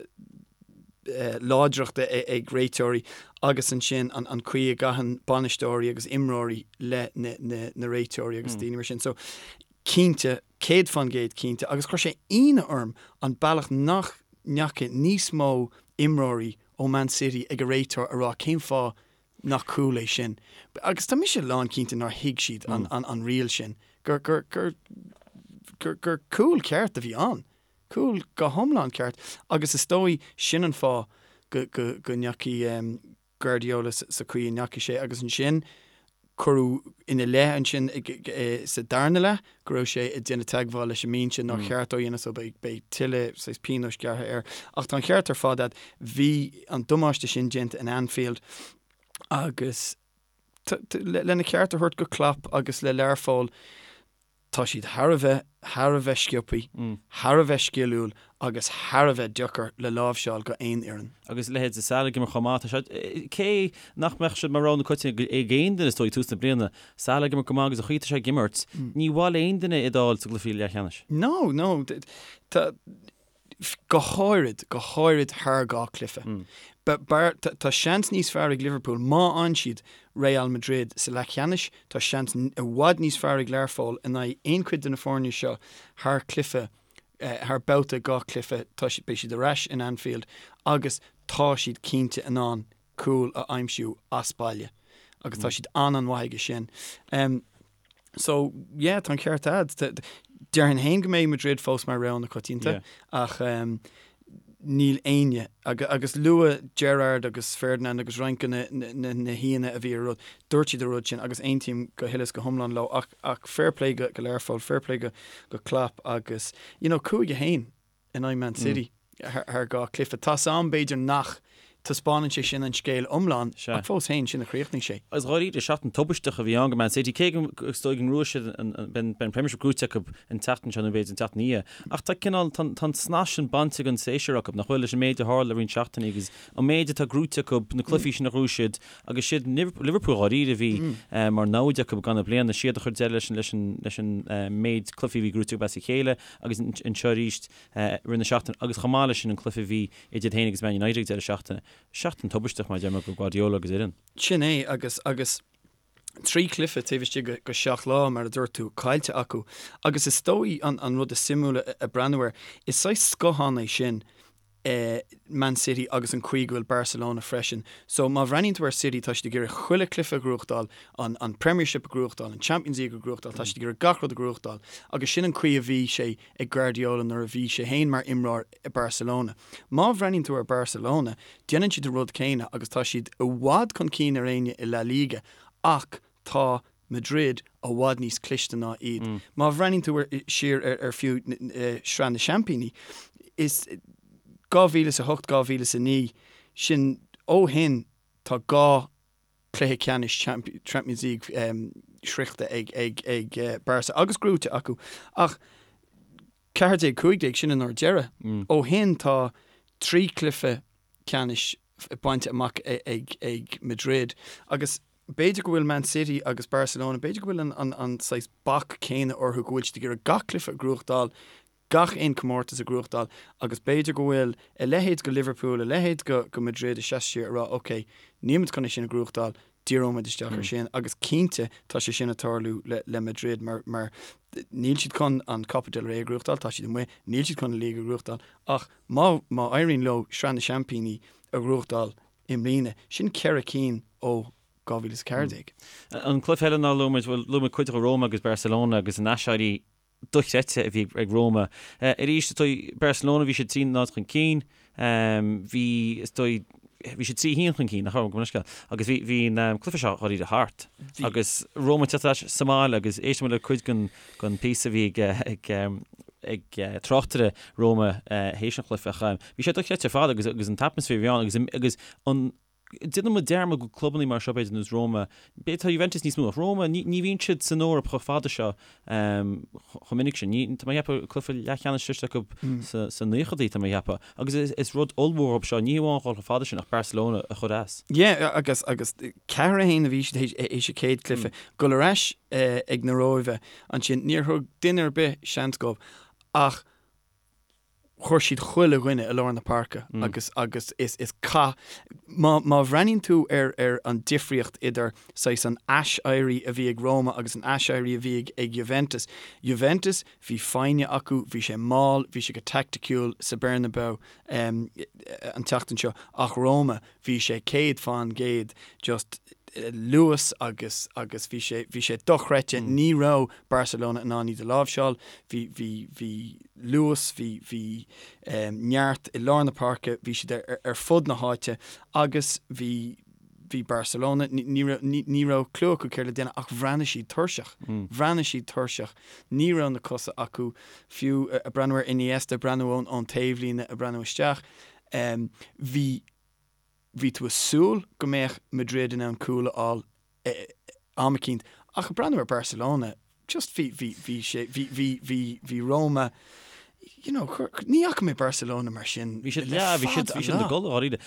C: láidreachta ag réiteoirí. agus ansin an an chaoi a gcaitheann bainisteoirí agus imreoirí le na na na réiteoirí agus daoine mar sin. So cinnte, 100% cinnte agus chuir sé ionadh orm an bealach nach ndeachaigh níos mó imreoirí ó Man City ag an réiteoir a rá cén fáth nach cúl é sin. Agus tá mise lán cinnte nár thuig siad an riail sin, gur gur gur gur gur cúl ceart a bhí ann. Cúl go hiomlán ceart agus is dóigh sin an fáth go go go ndeachaigh Guardiola sa chaoi a ndeachaigh sé agus ansin cuireadh ina leith ansin sa darna leath go raibh sé ag déanamh teagmháil leis an mbinse nár cheart dó a dhéanamh so beidh beidh tuilleadh saghas pionóis gearrtha air. Ach tá an ceart ar fad agat, bhí an damáiste sin déanta in Anfield agus lena cheart a thabhairt go Klopp agus le Learpholl, Tá siad thar a bheith, thar a bheith sciobthaí, thar a bheith sciliúil agus thar a bheith deacair le láimhseáil go aon fhoireann.
A: Agus leithéid de Salah ag imirt chomh maith, tá sé, cé nach mbeadh sé mar rogha na coitianta ag aon duine is dóigh ag tús na bliana, Salah ag imirt go maith agus an chaoi atá sé ag imirt, ní mhaith le aon duine iad a fháil sa gcluiche leathcheannais.
C: No, no, tá, go háirid, go háirid thar 2 cluiche. Tá seans níos fearr ag Liverpool má fhaigheann siad Real Madrid sa leathcheannais, tá seans i bhfad níos fearr ag Learpholl in aghaidh aon chuid de na foirne seo thar chluiche, thar babhta 2 chluiche, tá siad, beidh siad ar ais in Anfield agus tá siad cinnte in ann cúl a aimsiú as baile agus tá siad an-an-mhaith aige sin. So, yeah, tá an ceart a'd. Déarfainn féin go mbeidh Madrid fós mar rogha na coitianta ach níl éinne, agus luadh Gerrard agus Ferdinand agus roinnt de na haíonna a bhí ar rud, dúirt siad an rud sin agus aontaím go huile is go hiomlán leo ach ach fair play go Learpholl, fair play go Klopp agus, you know, 5-1. in aghaidh Man City thar 2 chluiche. Tá's a'm, b'fhéidir nach taispeánann sé sin an scéal iomlán, ach fós féin, sin a chríochnaigh sé.
A: Agus dháiríre, seachtain tubaisteach a bhí ann go Man City, cé go is dóigh go ngnóthóidh siad an, beidh an Premiership gnóite acu an tseachtain seo nó b'fhéidir an tseachtain ina dhiaidh. Ach tá cineál, tá an snas sin bainte den séasúr acu, nach bhfuil, leis an méid a tharla le roinnt seachtainí agus an méid atá gnóite acu, na cluichí sin a ghnóthaigh siad agus siad Liverpool dháiríre a bhí mar namhaid acu i gcaitheamh na bliana, siad a chuir deireadh leis an, leis an méid cluichí a bhí gnóite acu as a chéile. agus anseo arís i rith na seachtaine agus chomh maith leis sin an cluiche a bhí idir iad féin agus Man United ag deireadh seachtaine. Seachtain tubaisteach mar a deir mé go Guardiola agus a fhoireann.
C: Sin é agus agus 3 chluiche taobh istigh de 7 lá, mar a dúirt tú, caillte acu. Agus is dóigh an an rud is suimiúla a breathnú air, is saghas scothán é sin Man City agus an chaoi go bhfuil Barcelona freisin. So má bhreathnaíonn tú ar City tá siad ag iarraidh chuile chluiche a ghnóthachtáil, an an Premiership a ghnóthachtáil, an Champions League a ghnóthachtáil, tá siad ag iarraidh gach rud a ghnóthachtáil agus sin an chaoi a bhí sé ag Guardiola nuair a bhí sé féin mar imreoir i Barcelona. Má bhreathnaíonn tú ar Barcelona, déanann siad an rud céanna agus tá siad i bhfad chun cinn ar éinne i La Liga ach tá Madrid i bhfad níos cliste ná iad. Má bhreathnaíonn tú siar ar fiú Sraith na Seaimpíní, is 2008, 2009, sin ó shin tá 2 chluiche ceannais Champions League sroichte ag Barca agus gnóite acu. Ach 14, 15, sin an uair deireadh. Ó shin tá 3 chluiche ceannais bainte amach ag Madrid agus b'fhéidir go bhfuil Man City agus Barcelona, b'fhéidir go bhfuil an saghas bac céanna orthu go bhfuil siad ag iarraidh gach cluiche a ghnóthachtáil, gach aon comórtas a ghnóthachtáil agus b'fhéidir go bhfuil a leithéid go Liverpool, a leithéid go Madrid ag seasamh siar ag rá ok, nílimid chun é sin a ghnóthachtáil, díreoimid isteach ar sin agus cinnte tá sé sin ag tarlú le Madrid mar mar níl siad chun an Copa del Rey a ghnóthachtáil, tá siad amuigh, níl siad chun an League a ghnóthachtáil ach má má éiríonn leo Sraith na Seaimpíní a ghnóthachtáil i mbliana, sin 4 cinn ó 2014.
A: An cluiche eile nár luaigh muid, bhuel, luaigh muid cuid de Roma agus Barcelona agus an aiséirí dochreidte a bhí ag Roma. Arís, is dóigh, Barcelona, bhí siad 3-0 chun cinn, bhí, is dóigh, bhí siad 3-1 chun cinn, nach raibh, gabh mo leithscéal, agus bhí, bhí an cluiche seo dháiríre thart. Agus Roma ag teacht ar ais sa mbaile agus éist muid le cuid den, den phíosa a bhí ag, ag, ag tráchtaire Roma théis an chluiche ach bhí sé dochreidte ar fad agus, agus an t-atmaisféar a bhí ann agus, agus an, Déanann muid dearmad go clubannaí mar seo, b'fhéidir, nós Roma, b'fhéidir tá Juventus níos mó, ach Roma, ní, ní bhíonn siad san Eoraip chomh fada seo chomh minic sin. Ní, tá mé ag ceapadh, cluiche leathcheannais sroichte acu sa, sa naochadaí, tá mé ag ceapadh. Agus is, is rud ollmhór dóibh seo, ní hamháin dhul chomh fada sin ach Barcelona a chur as.
C: Yeah, agus, agus 4-1 a bhí siad théis an chéad cluiche. Dul ar ais ag na Róimhe ansin, níor thug duine ar bith seans dóibh ach. Chuir siad chuile dhuine i lár na páirce agus agus is is cath má má bhreathnaíonn tú ar ar an difríocht idir saghas an ais-éirí a bhí ag Roma agus an ais-éirí a bhí ag ag Juventus, Juventus bhí foighne acu, bhí sé mall, bhí sé go taicticiúil sa Bernabeu an tseachtain seo ach Roma bhí sé 100% just luas agus agus bhí sé bhí sé dochreidte ní raibh Barcelona in ann iad a láimhseáil bhí bhí bhí luas bhí bhí neart i lár na páirce bhí siad ar ar fud na háite agus bhí bhí Barcelona ní raibh ní raibh clue acu céard le déanamh ach bhreathnaigh siad tuirseach bhreathnaigh siad tuirseach ní raibh na cosa acu fiú ag breathnú ar Iniesta ag breathnú ón ón taobhlíne ag breathnú isteach bhí bhí tú ag súil go mbeadh Madrid in ann cúl a fháil am eicínt ach ag breathnú ar Barcelona just bhí bhí bhí sé bhí bhí bhí bhí Roma you know chuir ní fhaca mé Barcelona mar sin
A: Bhí siad le yeah, bhí siad bhí siad ina gcodladh dháiríre.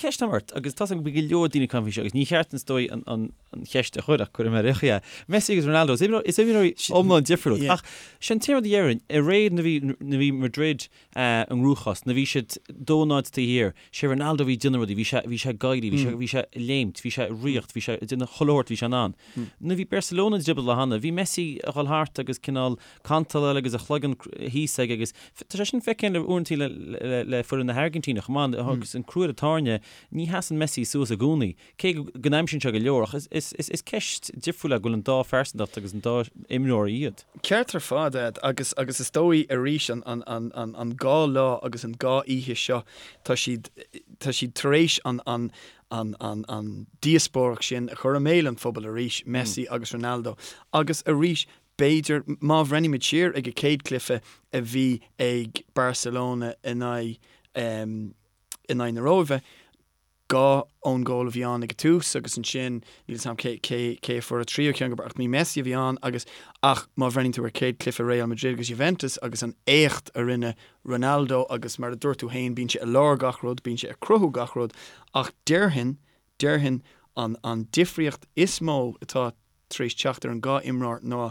A: Ceist agam ort agus tá a fhios agam go bhfuil go leor daoine ag caint faoi seo agus ní cheart is dóigh an an an cheist a chur ach cuirfidh mé ar é. Messi agus Ronaldo is imreoirí is imreoirí iomlán difriúil ach sin an t-aon rud a déarfainn i ré nuair a bhí nuair a bhí Madrid i gcruachás. Nuair a bhí siad 2-0 taobh thiar, sé Ronaldo a bhí ag déanamh rudaí, bhí sé, bhí sé ag éirí, bhí sé, bhí sé ag léimt, bhí sé ag ritheacht, bhí sé ag déanamh chuile shórt a bhí sé in ann. Nuair a bhí Barcelona i dtrioblóid cheana, bhí Messi ag dhul thart agus cineál cantal agus a chloigeann thíos aige agus tá sé sin feicthe le uaireanta le, le, le foireann na hAirgintíne chomh maith agus an crú ar an tairne, ní sheasann Messi suas i gcónaí. Cé go n-aimsíonn sé go leor, ach is ceist difriúil é go bhfuil an dá phearsantacht agus an dá imreoir iad.
C: Ceart ar fad, Ed, agus agus is dóigh arís an an an an an dhá lá agus an dhá oíche seo tá siad tá siad tar éis an an an an an díospóireacht sin a chur i mbéal an phobail arís, Messi agus Ronaldo. Agus arís b'fhéidir má bhreathnaímid siar ag an chéad chluiche a bhí ag Barcelona in aghaidh in aghaidh na Róimhe, 2 own goal a bhí ann ag an tús agus ansin níl 'fhios a'm cé cé cé a fuair an tríú ceann ach ní Messi a bhí ann agus ach má bhreathnaíonn tú ar chéad cluiche Real Madrid agus Juventus agus an éacht a rinne Ronaldo agus mar a dúirt tú féin bíonn sé i lár gach rud, bíonn sé ag cruthú gach rud ach déarfainn déarfainn an an difríocht is mó atá tar éis teacht ar an dhá imreoir ná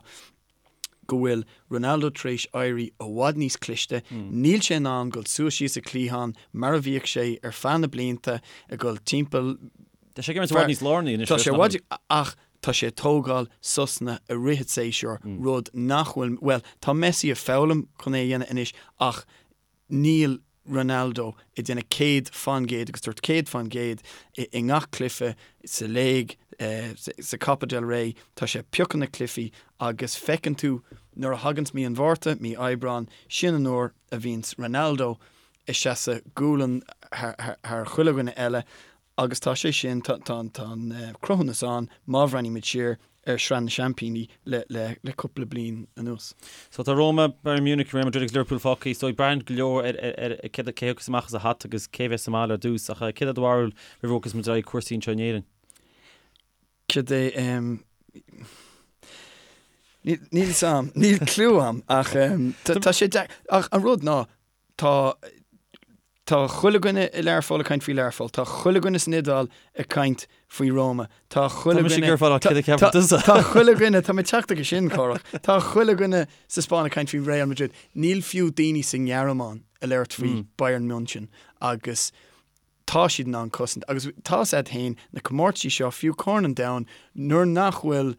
C: go bhfuil Ronaldo tar éis éirí i bhfad níos cliste, níl sé in ann dul suas síos an cliathán mar a bhíodh sé ar feadh na blianta, ag dul timpeall.
A: Tá sé ag imirt i bhfad níos lárnaí anois.
C: Tá sé i bhfad, ach tá sé ag tógáil sosanna i rith an tséasúir, rud nach bhfuil, bhuel, tá Messi ag foghlaim chun é a dhéanamh anois ach Níl Ronaldo ag déanamh 100% agus dúirt 100% i ngach cluiche, sa léig, sa Copa del Rey, tá sé ag piocadh na cluichí agus feiceann tú nuair a thaganns mí an Mhárta, mí Aibreáin, sin an uair a bhíonns Ronaldo ag seasamh gualainn thar chuile dhuine eile Agus tá sé sin, tá an cruthúnas ann má bhreathnaímid siar ar Shraith na Seaimpíní le cúpla bliain anuas.
A: So tá Roma, Bayern Munich, Real Madrid agus Liverpool fágtha. Is dóigh braitheann go leor ar cé a thiocfas amach as a hata agus cé a bheas sa mbaile ar dtús. Ach céard é do bharúil roimh a bhogfas muid ar aghaidh cúrsaí anseo in Éirinn?
C: Cad é, níl fhios a'm, níl clue a'm ach tá sé deacair, ach an rud ná Tá Tá chuile dhuine i Learpholl ag caint faoi Learpholl. Tá chuile dhuine san Iodáil ag caint faoi Roma. Tá chuile
A: Tá mise ag iarraidh fáil céard a cheapann tusa.
C: Tá chuile dhuine, tá mé ag teacht aige sin, Cárthach. Tá chuile dhuine sa Spáinn ag caint faoi Real Madrid. Níl fiú daoine sa nGearmáin ag labhairt faoi Bayern München agus tá siad in ann cosaint. Agus tá 'fhios a'd féin, na comórtaisí seo, fiú Corn an Domhain, nuair nach bhfuil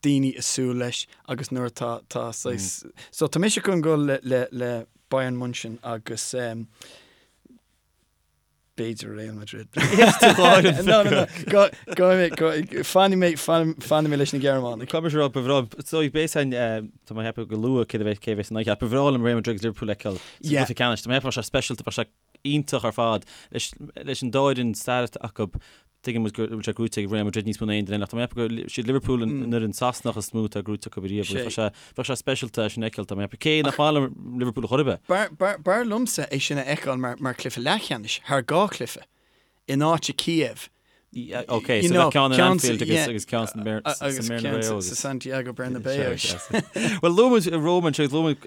C: daoine ag súil leis agus nuair atá tá saghas so tá mise chun dul le le le Bayern München agus um, b'fhéidir Real Madrid. No, no, no. Go go go fanfaidh mé fanfaidh mé leis na Gearmánaigh.
A: Caithfidh mise a rá ba bhreá so b'fhéidir san tá mé ag ceapadh go luath cé a bheas cé a bheas in aghaidh ba bhreá liom Real Madrid agus Liverpool a fheiceáil sa gcluiche ceannais. Tá mé ag ceapadh bheadh sé speisialta bheadh sé iontach ar fad leis an dá fhoireann stair acu. Tuigeann muid go bhfuil sé gnóite ag Real Madrid níos mó ná aon duine eile ach tá mé ag ceapadh gur siad Liverpool an fhoireann Sasanach is mó atá gnóite acu riamh. Bheadh sé bheadh sé speisialta é sin a fheiceáil tá mé ag ceapadh. Cé nach maith liom Liverpool ar chor ar
C: bith. B'fhearr liomsa é sin a fheiceáil mar chluiche leathcheannais thar dhá chluiche in áit i Kiev.
A: Ok, so bheadh ceann in Anfield agus agus ceann san Bernabeu
C: agus sa Santiago Bernabeu.
A: Well luaigh muid Roma anseo agus luaigh muid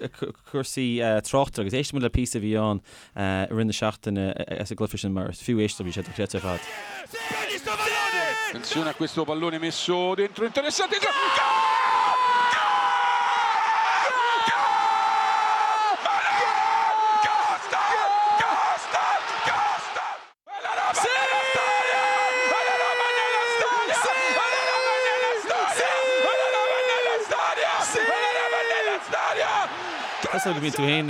A: cúrsaí tráchta agus éistfidh muid le píosa a bhí ann i rith na seachtaine as an gcluiche sin mar is fiú éisteacht bhí sé dochreidte ar fad.
D: Attenzione a questo pallone messo dentro interessante.
A: Cosúil go mbíonn tú féin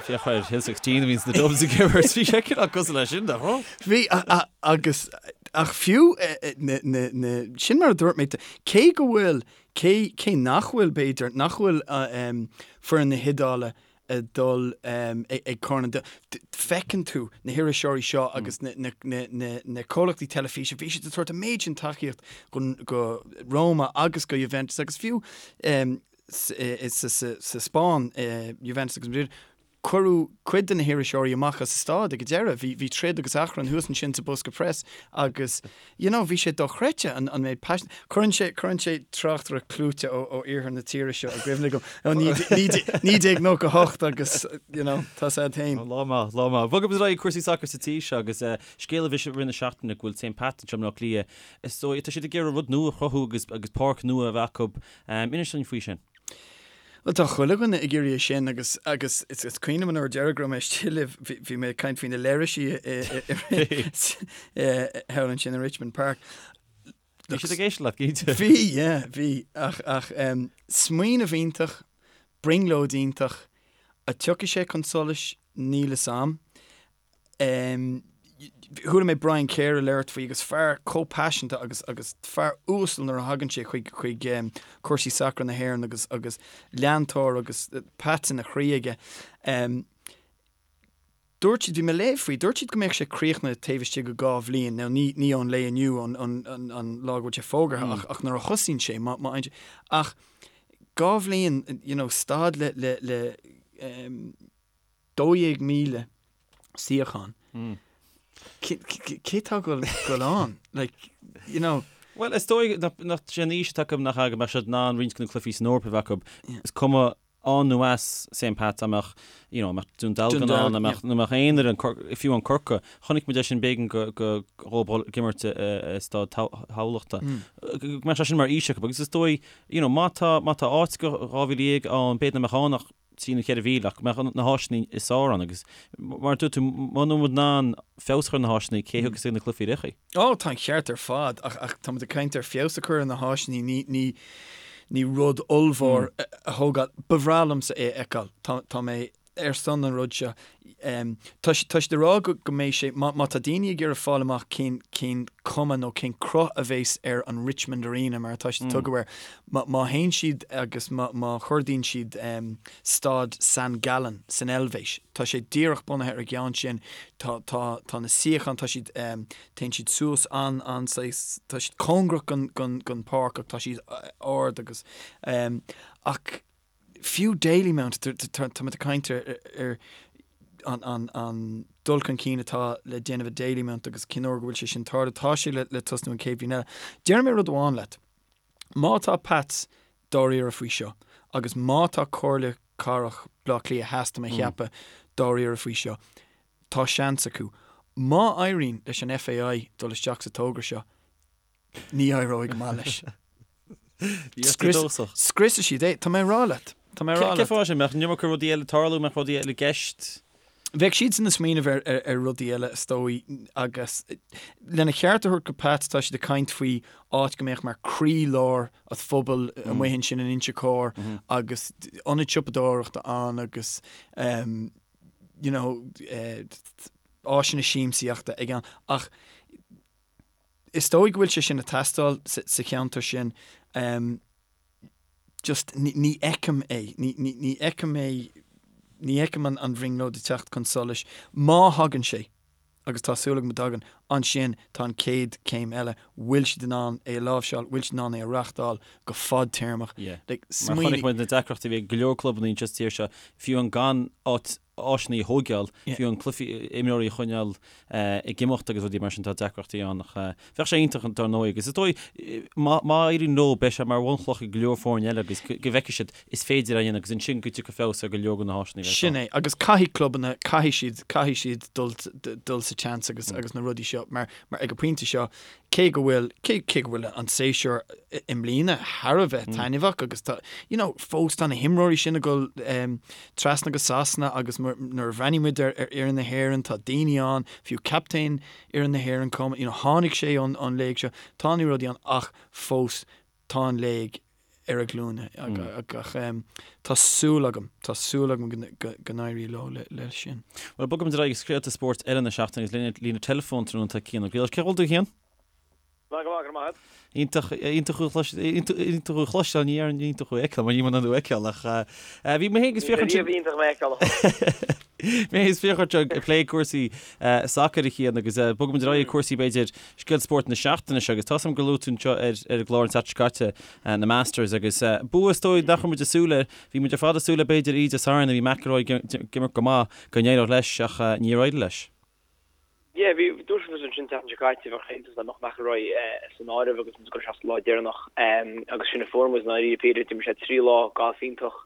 A: féach ar Hill 16 a bhíonn sna Dubs ag imirt, bhí sé cineál cosúil leis sin, nach raibh?
C: Bhí, agus, ach fiú, na, na, na, sin mar a dúirt mé, cé go bhfuil, cé, cé nach bhfuil, b'fhéidir, nach bhfuil foireann na hIodáile ag dul ag Corn an Domhain, feiceann tú na hiriseoirí seo agus na, na, na, na, na comhlachtaí teilifíse, bhí siad ag tabhairt an méid sin tacaíocht go, go Roma agus go Juventus agus fiú, sa Spáinn, Juventus agus Madrid, cuireadh cuid de na hiriseoirí amach as an staid ag an deireadh. Bhí, bhí troid agus achrann thuas ansin sa bosca preas agus, you know, bhí sé dochreidte an, an méid paisin. Cuireann sé, cuireann sé tráchtaireacht clúite ó, ó iarthar na tíre seo i gcuimhne dom ó 1998 agus, you know, tá sé féin.
A: Lá maith, lá maith. Bogfaidh muid ar aghaidh cúrsaí sacair sa tír seo agus scéal a bhí i rith na seachtaine go bhfuil St Pat's anseo i mBleá Cliath. Is dóigh, tá siad ag iarraidh rud nua a chruthú agus, agus páirc nua a bheith acu. Inis dúinn faoi sin.
C: Bhuel, tá chuile dhuine ag iarraidh é sin agus agus is is cuimhin liom an uair deiridh go raibh mé istigh libh, bhí bhí mé ag caint faoi na leithrisí i i thall ansin i Richmond Park.
A: Bhí siad ag éisteacht leat, cinnte.
C: Bhí, yeah, bhí. Ach ach smaoineamh iontach, brionglóid iontach, an dtiocfaidh sé chun solais, níl fhios a'm. Chuala mé Brian Kerr ag labhairt faoi agus fear chomh paiseanta agus agus fear uasal nuair a thagann sé chuig chuig cúrsaí sacair na hÉireann agus agus leantóir agus Pats ina chroí aige. Dúirt siad, bhí mé ag léamh faoi, dúirt siad go mbeadh sé críochnaithe taobh istigh de 2 bhliain. Now ní ní ón lae inniu an an an an lá go bhfuil sé fógartha ach ach nuair a thosaíonn sé má má ach 2 bhliain you know staid le le le 12,000 suíochán. Cé tá ag dul ann? Like, you know.
A: Bhuel, is dóigh nach sé an fhís atá acu nach ea go mbeadh siad in ann roinnt de na cluichí san Eoraip a bheith acu. Is cuma ann nó as St Pat's, an mbeadh, you know, an mbeadh Dún Dealgan ann, an mbeadh, nó mbeadh aon fhoireann, fiú an Corcaigh. Chonaic muid é sin b'éigean go, go, dhóibh dul ag imirt i Staid Thamhlachta. Go mbeadh sé sin mar fhís acu agus is dóigh, you know, má tá, má tá áit go 12,000 ann, b'fhéidir nach mbeadh ann ach 3 nó 4,000 ach go mbeadh na háiseanna is fearr ann agus mar a dúirt tú, muna bhfuil muid in ann feabhas a chur ar na háiseanna, cé a thiocfas ag na cluichí ar chaoi?
C: Ó, tá an ceart ar fad ach ach tá muid ag caint ar feabhas a chur ar na háiseanna, ní ní ní rud ollmhór a thógáil. Ba bhreá liomsa é a fheiceáil. Tá tá mé ar son an rud seo. Tá tá siad ag rá go go mbeidh sé, má má tá daoine ag iarraidh fáil amach cén cén cuma nó cén cruth a bheas ar an Richmond Arena mar atá siad ag tugadh air, má má théann siad agus má má chuardaíonn siad staid San Gallen san Eilvéis, tá sé díreach bunaithe ar an gceann sin, tá tá tá na suíocháin, tá siad téann siad suas an an saghas, tá siad cóngarach gon gon gon páirc ach tá siad ard agus ach fiú Dalymount, tá muid ag caint ar an dul chun cinn atá le déanamh i Dalymount agus cén uair go bhfuil sé sin tarlú, tá sé le tosnú an chéad bhliain eile. Déarfaidh mé rud amháin leat, má tá Pats dáiríre faoi seo agus má tá Comhairle Cathrach Bhaile Átha Cliath Theas, tá mé a cheapadh, dáiríre faoi seo, tá seans acu. Má éiríonn leis an FAI dul isteach sa togra seo, Ní éireoidh go maith leis. Scriosfaidh siad é. Tá mé ag rá leat. Tá mé ag rá leat.
A: Cén fáth sin? Mbeadh an iomarca rudaí eile ag tarlú, mbeadh rudaí eile i gceist?
C: Bheadh siadsan ag smaoineamh ar, ar, ar rudaí eile, is dóigh, agus lena cheart a thabhairt go Pats, tá siad ag caint faoi áit go mbeadh mar croílár an phobail amuigh ansin in Inse Chór agus ionad siopadóireachta ann agus um, you know, eh, áiseanna siamsaíochta ag an ach Is dóigh go bhfuil sé sin ag teastáil sa cheantar sin. Just ní fheicim é. Ní fheicim é, ní fheicim an bhrionglóid ag teacht chun solais. Má thagann sé, agus tá súil agam go dtagann, ansin tá an chéad chéim eile, bhfuil siad in ann é a láimhseáil, bhfuil siad in ann é a reáchtáil go fadtéarmach.
A: Yeah. Mar chonaic muid na deacrachtaí a bhí ag go leor clubanna anseo sa tír seo, fiú an gan áit áiseanna a thóigeáil, fiú an cluichí, imreoirí a choinneáil ag imeacht agus rudaí mar sin, tá deacrachtaí ann ach bheadh sé iontach dar ndóigh agus is dóigh má éiríonn leo beidh sé mar bhunchloch ag go leor foirne eile agus go bhfeicfidh siad is féidir é a dhéanamh agus ansin go dtiocfaidh feabhas ar go leor de na háiseanna a
C: bheas Sin
A: ann.
C: é agus caithfidh clubanna, caithfidh siad, caithfidh siad dul, dul sa tseans agus, agus na rudaí seo mar, mar ag an bpointe seo cé go bhfuil, cé, cé go bhfuil an séasúr i mbliana thar a bheith taitneamhach agus tá, you know, fós tá na himreoirí sin ag dul trasna go Sasana agus nuair a bhreathnaíonn muid ar ar fhoireann na hÉireann tá daoine ann, fiú captaen fhoireann na hÉireann, you know, tháinig sé ón, ón léig seo, tá na rudaí ann ach fós tá an léig. ar a glúine ach tá súil agam, tá súil agam go n-éireoidh leo leis sin.
A: Bhuel, bogfaimid ar aghaidh ag scéalta spóirt eile na seachtaine agus linn ar líne teileafóin tráthnóna tá Cian Ó Griallais. Cén chaoi a bhfuil tú, a Chian?
B: Go maith, go raibh maith agat.
A: Iontach, iontach thú a chlois, iontach thú a chloisteáil, ní déarfainn iontach thú a fheiceáil, mar níl mé in ann thú a fheiceáil ach bhí mé féin agus Fiachra ansin.
B: Ní iontach mé a fheiceáil a
A: chloisteáil. Mé féin is Fiachra anseo ag plé cúrsaí sacair a Chian agus bogfaimid ar aghaidh ag cúrsaí b'fhéidir scéal spóirt na seachtaine seo agus tá 's agam gur luaigh tú anseo ar ar an gclár an tseachtain seo caite na Masters agus bua is dóigh nach raibh muid ag súil air, bhí muid ar fad ag súil le b'fhéidir oíche Dé Sathairn a bhí McIlroy ag imirt go maith go n-éireodh leis ach níor éirigh leis.
B: Yeah, bhí, dúirt muid ansin an tseachtain seo caite, bheadh sé iontach dá mbeadh McIlroy san áireamh agus muid ag dul isteach sa lá deireanach agus sin a fuair muid i ndáiríre píre, d'imir sé 3 lá gailf iontach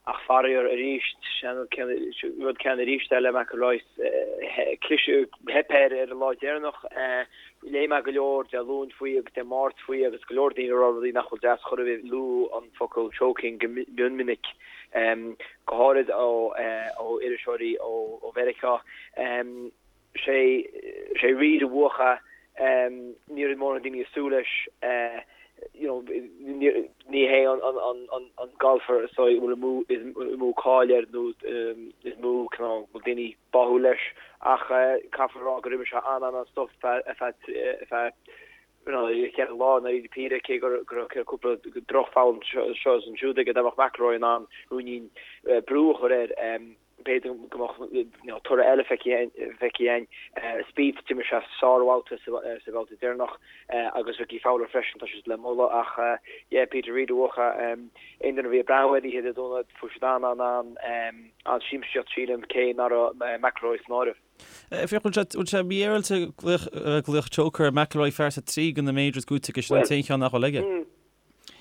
B: ach faraor arís, an rud céanna arís eile McIlroy, cliseadh, theip air ar an lá deireanach. Léigh mé go leor Dé Luain faoi agus Dé Máirt faoi agus go leor daoine ag rá rudaí nach bhfuil deas chor ar bith, luadh an focal choking go mion minic. go háirid ó iriseoirí ó Mheiriceá. Sé sé Reed a bhuaigh é, ní raibh mórán daoine ag súil leis, you know, ní hé an golfer is dóigh a bhfuil is mó cáil air nó is mó cineál bhfuil daoine báúil leis ach caithfear a rá gur imir sé an-an-an-stuif ar feadh cheithre lá i ndáiríre píre, cé go raibh cúpla drochpholl anseo is ansiúd aige, dá mbeadh McIlroy in ann ruainnín brú a chur air, b'fhéidir go mbeadh toradh eile feicthe againn. Spieth, d'imir sé sárbhabhta sa bhabhta deireanach agus Rickie Fowler freisin, tá siad le moladh ach yeah, Peter Reid a bhuaigh. Aon duine a bhí ag breathnú air oíche Dé Domhnaigh, fuair siad an-an-an-siamsaíocht sílim, cé nach raibh McIlroy san áireamh.
A: Féach, bhfuil sé, bhfuil sé mífhéaráilte glaoch choker ar McIlroy fear atá 3 de na majors buaite aige, sin an t-aon cheann nach bhfuil aige.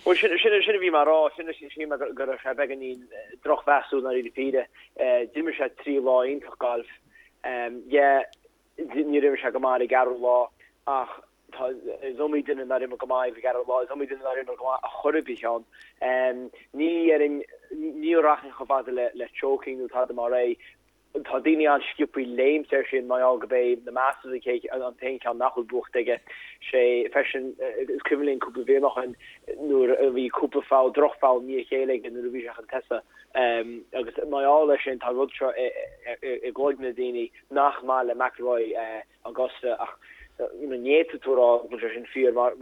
B: Bhuel, sin, sin, sin a bhí mé a rá, sin, sin mé go raibh sé beagáinín drochmheasúil i ndáiríre píre. D'imir sé 3 lá iontach gailf. Yeah, níor imir sé go maith ar an gceathrú lá ach tá, is iomaí duine nár imir go maith ar an gceathrú lá, is iomaí duine nár imir go maith a chor ar bith ann. Ní dhéarfainn, ní rachainn chomh fada le, le choking nó tada mar é. Tá daoine an-sciobthaí léimt air sin mar gheall gurb é na Masters an t-aon cheann nach bhfuil buachta aige. Sé freisin, is cuimhin linn cúpla bliain ó shin nuair a bhí cúpla foul, droch-fhoul i ndiaidh a chéile aige nuair a bhí sé chun tosaigh. Agus mar gheall air sin tá an rud seo i gcloigne na daoine nach maith le McIlroy Augusta ach ní fhéadfaidh tú a rá go bhfuil sé sin fíor mar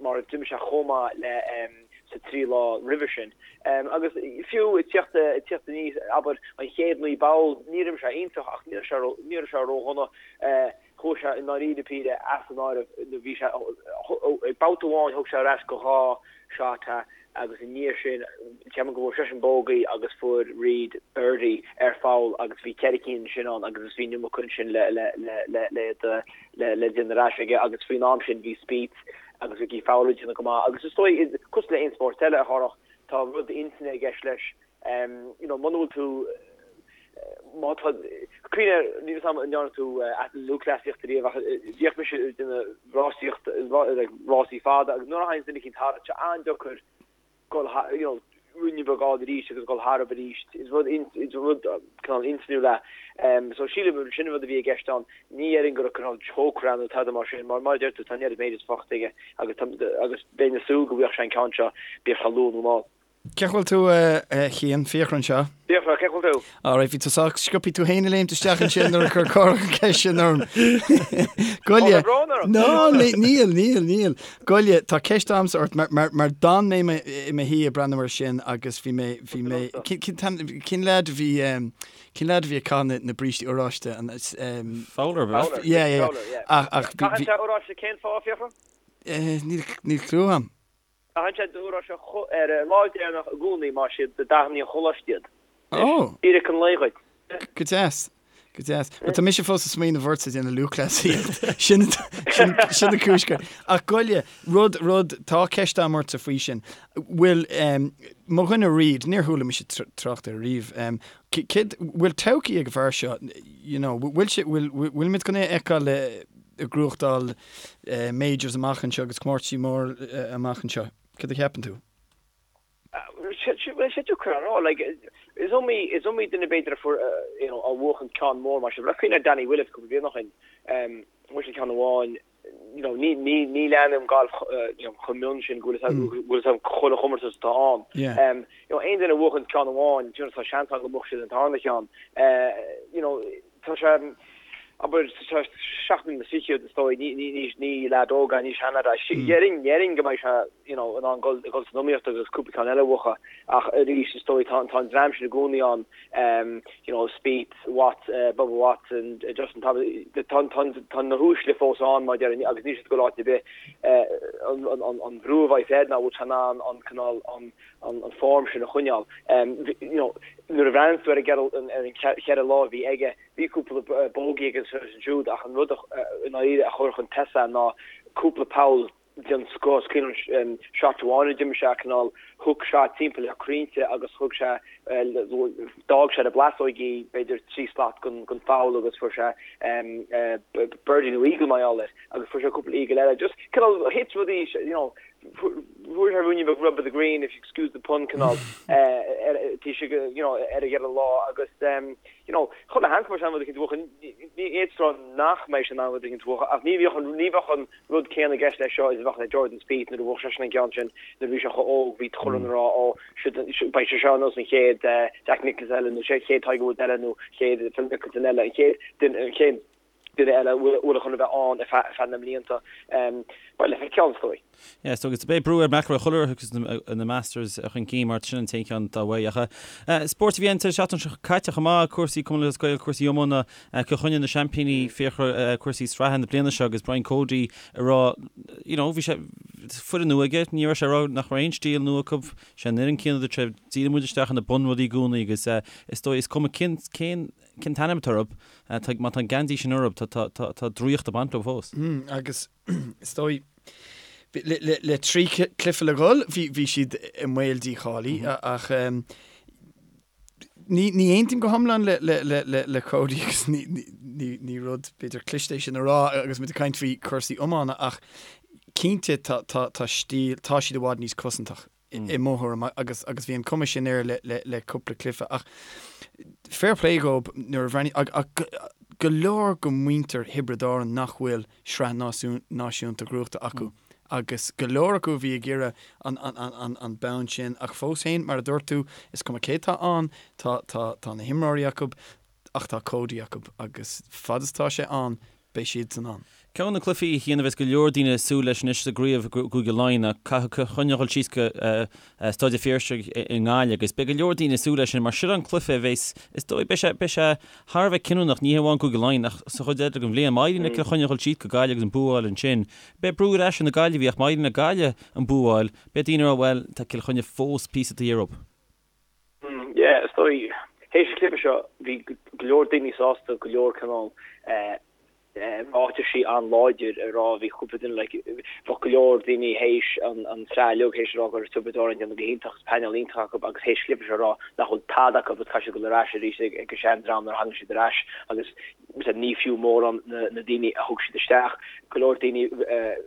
B: mar d'imir sé chomh maith le sa trí lá roimhe sin. Agus fiú ag tíocht ag tíocht aníos abair an chéad 9 bpoll níor imir sé iontach ach ní raibh sé ní raibh sé ródhona. Chuaigh sé i ndáiríre píre as an áireamh bhí sé ag babhta amháin thug sé ar ais go dhá shot é agus i ndiaidh sin ceapaim go bhfuair seisean bogey agus fuair Reed birdie ar pholl agus bhí ceithre cinn ansin ann agus bhí an iomarca ansin le le le le le le le déanamh ar ais aige agus faoin am sin bhí Spieth agus Rickie Fowler ag déanamh go maith agus is dóigh cosúil le aon spórt eile a Chárthach tá rud intinne i gceist leis you know muna bhfuil tú má tá cuimhne air níl 'fhios a'm an ndearna tú lúthchleasaíocht ariamh ach bhíodh mise ag déanamh rásaíocht like rásaí fada agus nuair a thagann duine eicínt tharat tá sé an-deacair dul you know ruainne beag a fháil arís agus dul tharab arís is rud is rud cineál intinniúil é. So sílim sin an rud a bhí i gceist ann. Ní dhéarfainn go raibh cineál choker ann nó tada mar sin mar mar a deir tú tá an oiread majors faighte aige agus agus bheinn ag súil go bhfaigheadh sé an ceann seo bíodh sé luath nó mall.
C: Cén chaoi a bhfuil tú, a Chian? Fiachra anseo.
B: Fiachra, cén chaoi a bhfuil tú?
C: Alright, bhí tú sách sciobtha tú féin ag léimt isteach ansin nuair a chuir Cárthach an ceist sin orm. Goile.
B: Tá brón orm.
C: No, níl, níl, níl. Goile, tá ceist a'msa ort mar, mar, mar d'fhan mé i mo shuí ag breathnú air sin agus bhí mé, bhí mé, cén leaid a bhí, cén leaid a bhí ag caitheamh na brístí oráiste? An,
A: Fowler,
C: ab ea?
B: Fowler,
C: Yeah, yeah, yeah.
B: Fowler, yeah.
C: Ach, ach, bhí,
B: Caitheann sé oráiste cén fáth, Fiachra?
C: Níl, níl clue a'm.
B: Caitheann sé oráiste ar an lá deireanach i gcónaí mar is iad dathanna an choláiste iad.
C: Ó!
B: Fíric an lae dhuit.
C: Go deas. Go deas. Bhuel, tá mise fós ag smaoineamh ortsa ag déanamh lúthchleasaíocht. Sin, sin, sin an cúis go. Ach goile, rud, rud, tá ceist a'm ortsa faoi sin. Bhfuil, em, mo dhuine Reid, níor chuala mise trácht air riamh, em, céard, bhfuil todhchaí ag an bhfear seo, you know, bhfuil sé, bhfuil, bhfuilimid chun é a fheiceáil ag gnóthachtáil majors amach anseo agus comórtaisí mór amach anseo. Cad a cheapann tú?
B: Bhuel, sé deacair a rá. Like, is iomaí, is iomaí duine b'fhéidir a fuair, you know, a bhuachan ceann mór mar sin. Cuimhin ar Danny Willett cúpla bliain ó shin, bhuaigh sé ceann amháin.
E: you know, ní, ní, ní leanaim galf, you know, chomh mion sin go bhfuil a fhios agam chuile chomórtas atá ann. Yeah. You know, aon duine a bhuachann ceann amháin, you know, tá seans ann go mbuafaidh siad an tarna cheann. You know, tá sé, abair, tá sé 7 mbliana is fichead, is dóigh, ní, ní, ní, ní leaid óg é, ní seanleaid é. Déarfainn, déarfainn go mbeidh sé, you know, in ann dul, dul san iomaíocht agus cúpla ceann eile a bhuachan. Ach arís, is dóigh, tá, tá an dream sin i gcónaí ann, you know, Spieth, Watt, Bubba Watson, Justin Thomas, tá, tá, tá na huaisle fós ann, mar a déarfainn, agus níl siad ag dul áit ar bith. An, an, an brú a bheidh air ná bhfuil sé in ann an cineál, an, an form sin a choinneáil. You know, nuair a bhreathnaíonn tú ar an ar an cheithre lá a bhí aige, bhí cúpla bogey aige anseo is ansiúd ach an rud i ndáiríre a chuir chun tosaigh ná cúpla poll den scoth. Is cuimhin liom shot amháin a d'imir sé, cineál hook shot timpeall ar chrainnte agus thug sé, d'fhág sé ar na blasóigí b'fhéidir 3 slat den pholl agus fuair sé birdie nó eagle mar gheall air agus fuair sé cúpla eagle eile. Just cineál thit rudaí, you know, Fuair sé ruainnín beag rub of the green, if you excuse the pun, cineál, taobh istigh, you know, ar an gceithre lá agus, you know, chuile sheans go mbeidh sé in ann rud eicínt a bhuachan, ní fhéadfá a rá nach mbeidh sé in ann rud eicínt a bhuachan ach ní bheadh an, ní bheadh an rud céanna i gceist leis seo is a bheadh le Jordan Spieth nuair a bhuaigh seisean an ceann sin nuair a bhí sé chomh óg, bhí chuile dhuine ag rá ó, siod, beidh sé seo ar nós an chéad Jack Nicklaus eile nó chéad Tiger Woods eile nó chéad Phil Mickelson eile, an chéad duine, an chéad. duine eile a bhfuil chun a bheith ann ar feadh na mblianta. Beidh le feiceáil, is dóigh.
A: Yeah, so agus beidh brú ar McIlroy chuile uair a thiocfas na Masters chun cinn mar sin an t-aon cheann atá uaidh. Ach spórt a bhí ann an tseachtain seo caite chomh maith, cúrsaí Cumann Lúthchleas Gael, cúrsaí iomána, Cill Chainnigh na seaimpíní, Fiachra, cúrsaí sraithe na bliana seo agus Brian Cody ag rá, you know, bhí sé, foireann nua aige, ní raibh sé ag rá nach raibh aon stíl nua acu, sé an fhoireann céanna dúirt sé, díríonn muid isteach ar na bunrudaí i gcónaí agus is dóigh, is cuma cén, cén, Cén t-ainm atá orthu? Má tá an geansaí sin orthu, tá draíocht ag baint leo fós.
C: Agus is dóigh, le 3 cluiche le dhul, bhí siad i mbaol dícháilithe ach ní aontaím go hiomlán le Cody agus ní rud b'fhéidir cliste é sin a rá agus muid ag caint faoi chúrsaí iomána ach cinnte tá stíl, tá siad i bhfad níos cosantach. i mo thuairim agus agus bhí an cuma sin air le le le cúpla cluiche ach fair play dhób nuair a bhreathnaigh ach ach go leor go muintir Thiobraid Árann nach bhfuil sraith náisiúnta gnóthaithe acu agus go leor acu a bhí ag iarraidh an an an an an bonn sin ach fós féin mar a dúirt tú is cuma cé tá ann tá tá tá na himreoirí acu ach tá Cody acu agus fad is tá sé ann beidh siadsan ann.
A: Ceann de na cluichí a Chian a bheas go leor daoine ag súil leis anois sa gcraobh i gCúige Laighean ná caithfidh Cill Chainnigh a dhul síos go Staid an Phiarsaigh i nGaillimh agus beidh go leor daoine ag súil leis sin mar sin an cluiche a bheas, is dóigh, beidh sé, beidh sé thar a bheith cinniúnach, ní hamháin Cúige Laighean ach sa chuid eile den bhliain. Má éiríonn le Cill Chainnigh a dhul síos go Gaillimh agus an bua a fháil ansin, beidh brú ar ais ar na Gaillimhigh ach má éiríonn le Gaillimh an bua a fháil, beidh daoine ag rá bhuel, tá Cill Chainnigh fós píosa taobh thiar dhóibh.
E: Yeah, is dóigh, théis an chluiche seo, bhí go leor daoine sásta, go leor cineál ráitisí an-láidir a rá, bhí cúpla duine like, bheadh go leor daoine théis an tsraith uilig théis a rá go raibh Tiobraid Árann ag déanamh go hiontach agus painéal iontach acu agus théis an chluiche seo a rá nach bhfuil tada acu agus caithfidh siad dul ar ais arís ag an sean-dream nuair a thagann siad ar ais agus ní fiú mórán na daoine a thug siad isteach. Go leor daoine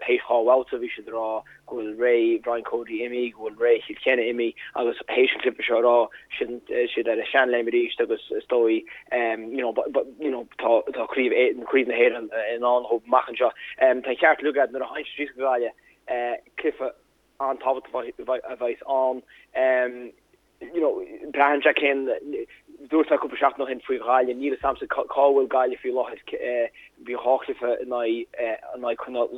E: théis dhá bhabhta bhí siad ag rá go bhfuil ré Brian Cody imithe, go bhfuil ré Chill Chainnigh imithe agus théis an chluiche seo a rá siad ar a seanléim arís agus is dóigh you know you know tá tá craobh craobh na hÉireann i ndán dhóibh amach anseo. Tá an ceart uilig agat nuair a théann siad síos go Gaillimh cluiche an-tábhachtach a bheas ann. you know, braitheann sé cén, dúirt mé cúpla seachtain ó shin faoi Ghaillimh, níl a fhios a'msa cá bhfuil Gaillimh faoi láthair, bhí dhá chluiche in aghaidh, in aghaidh cineál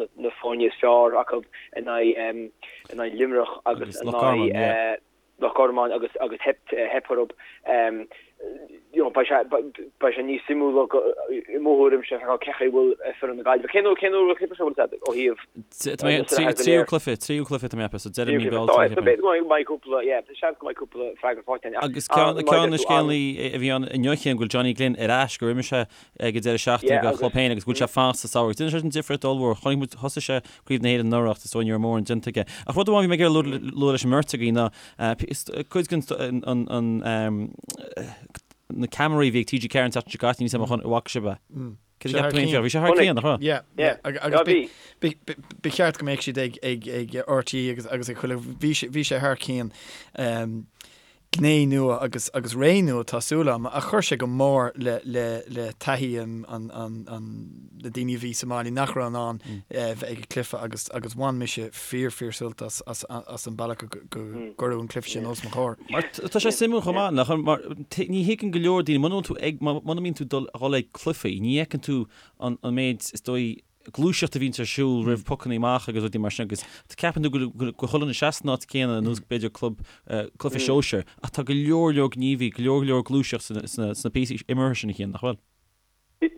E: na foirne is fearr acu, in aghaidh, in aghaidh Luimneach agus in aghaidh Loch Garman agus agus theip, theip orthu. You know, beidh sé, beidh sé níos suimiúla i mo thuairimse feiceáil cén chaoi a bhfuil foireann na Gaillimhe. Cén uair, cén uair a bhfuil an cluiche seo, bhfuil a fhios agat, ó thaobh
A: Tá mé, tríú cluiche, tríú cluiche tá mé ag ceapadh, so deireadh mí Bealtaine.
E: So b'fhéidir go mbeidh cúpla, yeah, seans go mbeidh cúpla freagra faighte againn.
A: Agus ceann, ceann na scéalaí a bhí ann inniu Cian, go bhfuil Johnny Glynn ar ais, gur imir sé ag an deireadh seachtaine do chlub féin agus go bhfuil sé fanacht sa samhradh. Déanann sé sin difríocht ollmhór. Chonaic muid, thosaigh sé Craobh na hÉireann anuraidh ach is dóigh ní raibh mórán déanta aige. Ach rud amháin a bhí mé ag iarraidh lua leis an mbeirt agaibh ná cuid den an na ceamaraí a bhí ag TG4 an tseachtain seo caite, níl a fhios agam an bhfaca sibh é. Cad a cheap tú féin? Bhí sé thar cionn, nach raibh?
C: Yeah, yeah. Agus ba cheart go mbeadh siad ag ag ag RTÉ agus agus ag chuile bhí sé bhí sé thar cionn. gné nua agus agus ré nua tá súil agam ach chuir sé go mór le le le taithí an an an an na daoine a bhí sa mbaile nach raibh in ann bheith ag an cluiche agus agus bhain mise fíor fíor sult as as as an bealach go go gcuireadh an cluiche sin os mo chomhair.
A: Mar tá sé suimiúil chomh maith nach mar ní thuigeann go leor daoine muna bhfuil tú ag muna mbíonn tú dul dhul ag cluichí ní fheiceann tú an an méid is dóigh gluaiseacht a bhíonns ar siúl roimh pocanna amach agus rudaí mar sin agus ceapann tú go go chuile dhuine seasta san áit céanna ar nós b'fhéidir club cluiche sóisir ach tá go leor leor gníomhaí go leor leor gluaiseacht sna sna sna píosaí imeartha sin a Chian nach bhfuil?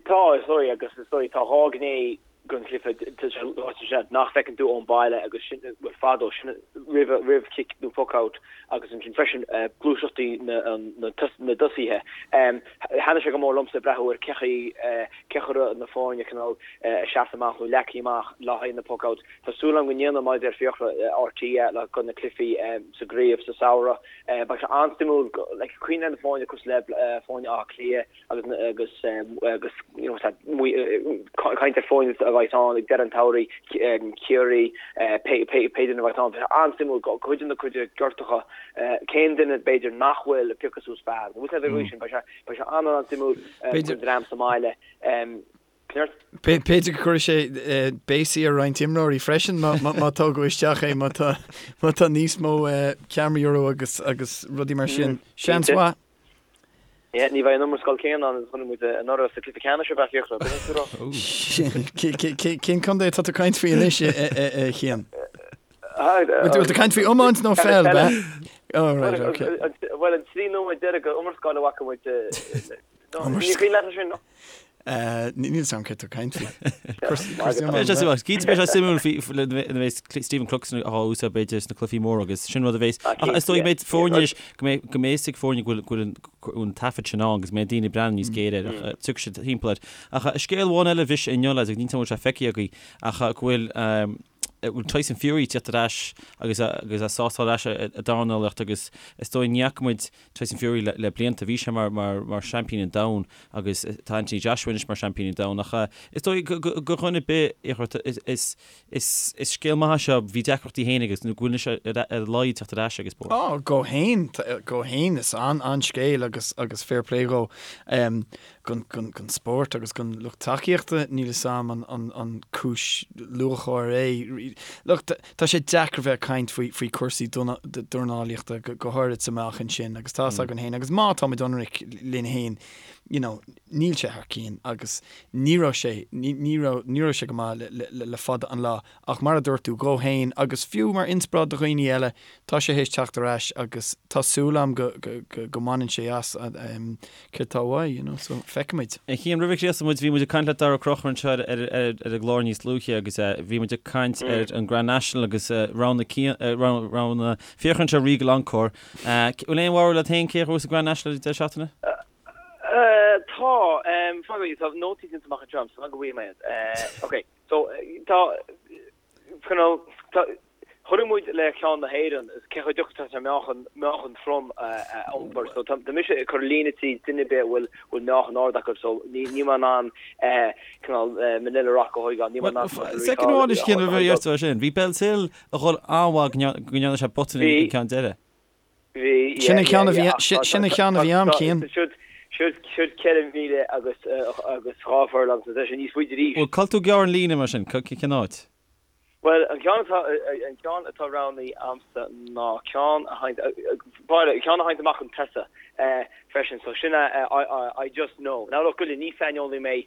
E: Tá is dóigh agus is dóigh tá dhá ghné den chluiche tá sé ráite sin nach bhfeiceann tú ón baile agus sin bhuel fadó sin roimh roimh cic nó puck out agus ansin freisin gluaiseachtaí na na na dtosaithe. Thaitnigh sé go mór liomsa breathnú ar cé chaoi cé chaoi a raibh na foirne cineál seasta amach nó leagtha amach le haghaidh na puck outs. Tá súil agam go ndéanfaidh mar a deir Fiachra RTÉ le do na cluichí sa gcraobh sa samhradh. Beidh sé an-suimiúil like cuimhnigh ar na foirne cosúil le foirne Átha Cliath agus agus agus you know caint ar foirne a bheidh ann ag deireadh an tsamhraidh, Ciarraí, pé pé duine a bheidh ann. Beidh sé an-suimiúil cuid de na cuid gortacha cén duine b'fhéidir nach bhfuil ag piocadh suas fear. Bhfuil sé bhfuil sin beidh sé Beidh sé an-an-suimiúil don dream sa mbaile.
C: B'fhéidir go gcuirfidh sé béasaí ar roinnt imreoirí freisin má tógadh isteach é, má tá níos mó ceamaraí orthu agus agus rudaí mar sin. Seans
E: mhaith. Ní bheidh an iomrascáil céanna ann is a chonaic muid anuraidh sa cluiche ceannais ab ea Fiachra?
C: Cén contae atá tú ag caint faoi anois, a Chian? Bhfuil tú ag caint faoi iomáint nó peil, ab ea?
E: Oh, right, okay. Bhuel, an 3 nóiméad deiridh de iomrascáil a bhfaca muid. Ní cuimhin leat sin?
C: Níl a fhios agam céard tá tú ag caint faoi.
A: Cinnte beidh sé suimiúil faoi nuair a bheas Stephen Cluxton á úsáid b'fhéidir sna cluichí móra agus sin rud a bheas ach is dóigh go mbeidh foirne anois go mbeidh go mbeidh fhios ag foirne go bhfuil an taifead sin ann agus go mbeidh daoine ag breathnú níos géire air ach tiocfaidh siad timpeall air. Ach scéal amháin eile a bhris inniu lads agus níl a fhios agam an bhfuil sé feicthe agaibh ach go bhfuil bhfuil Tyson Fury ag tíocht ar ais agus agus é sásta ar ais i dornálaíocht agus is dóigh ní fhaca muid Tyson Fury le le blianta. Bhí sé mar mar mar seaimpín an domhain agus tá Anthony Joshua anois mar seaimpín an domhain ach is dóigh go go go dhuine ar bith is is is is scéal maith é seo. Bhí deacrachtaí féin agus nó go bhfuil anois ar ar a laghad teacht ar ais ag an spórt.
C: Á, dhó fhéin, dhó fhéin is an an-scéal agus agus fair play dhó. Don spórt agus don lucht tacaíochta, níl 'fhios a'm an cúis lúcháir é. Look, tá sé deacair bheith ag caint faoi cúrsaí dornálaíochta, go háirid sa meáchan sin, agus tá 'fhios againn féin, agus má táimid ionraic linn féin, you know, níl sé thar cionn agus ní raibh sé, ní raibh, ní raibh sé go maith le fada an lá. Ach mar a dúirt tú, dhó fhéin, agus fiú mar inspioráid do dhaoine eile, tá sé théis teacht ar ais agus tá súil a'm go go mbaineann sé as céard tá uaidh, you know, so feicfimid.
A: A Chian, roimh a chríochnóidh muid, bhí muid ag caint le Dara Ó Conchúir anseo ar ar an gclár níos luaithe agus bhí muid ag caint ar an Grand National agus rogha rogha Fiachra anseo Regal Encore. Bhfuil aon bharúil agat féin cé a ghnóthós an Grand National ag deireadh seachtaine?
E: Tá, tá nótaí déanta amach anseo, so go bhfaighidh mé iad. Ok. So, tá, cineál, tá, chonaic muid le ceann na hÉireann, cé chomh deacair atá sé meáchan, meáchan trom a iompar. So, tá, tá mise ag cur líne tríd duine ar bith a bhfuil, bhfuil meáchan ard acu, so ní, níl mé in ann, cineál, Manila Rock a thógáil, níl mé in ann
A: Well, second amháin is cén a bhí ort sin. Bhí Bellshill ag dhul an-mhaith go ndearna sé botún an ceann deiridh.
C: Bhí, Sin an ceann a bhí, sin an ceann a bhí a'm, Cian.
E: Siúd, siúd, siúd 4 mhíle agus, agus 2 furlong, so tá sé níos faide arís.
A: Bhuel, cá bhfuil tú ag gearradh an líne mar sin, cén áit?
E: Bhuel, an ceann atá, an ceann atá roghnaithe a'msa ná ceann a thagann, bhuel, ceann a thagann amach chun tosaigh freisin, so sin é I Just Know. Now look, goile, ní saineolaí mé,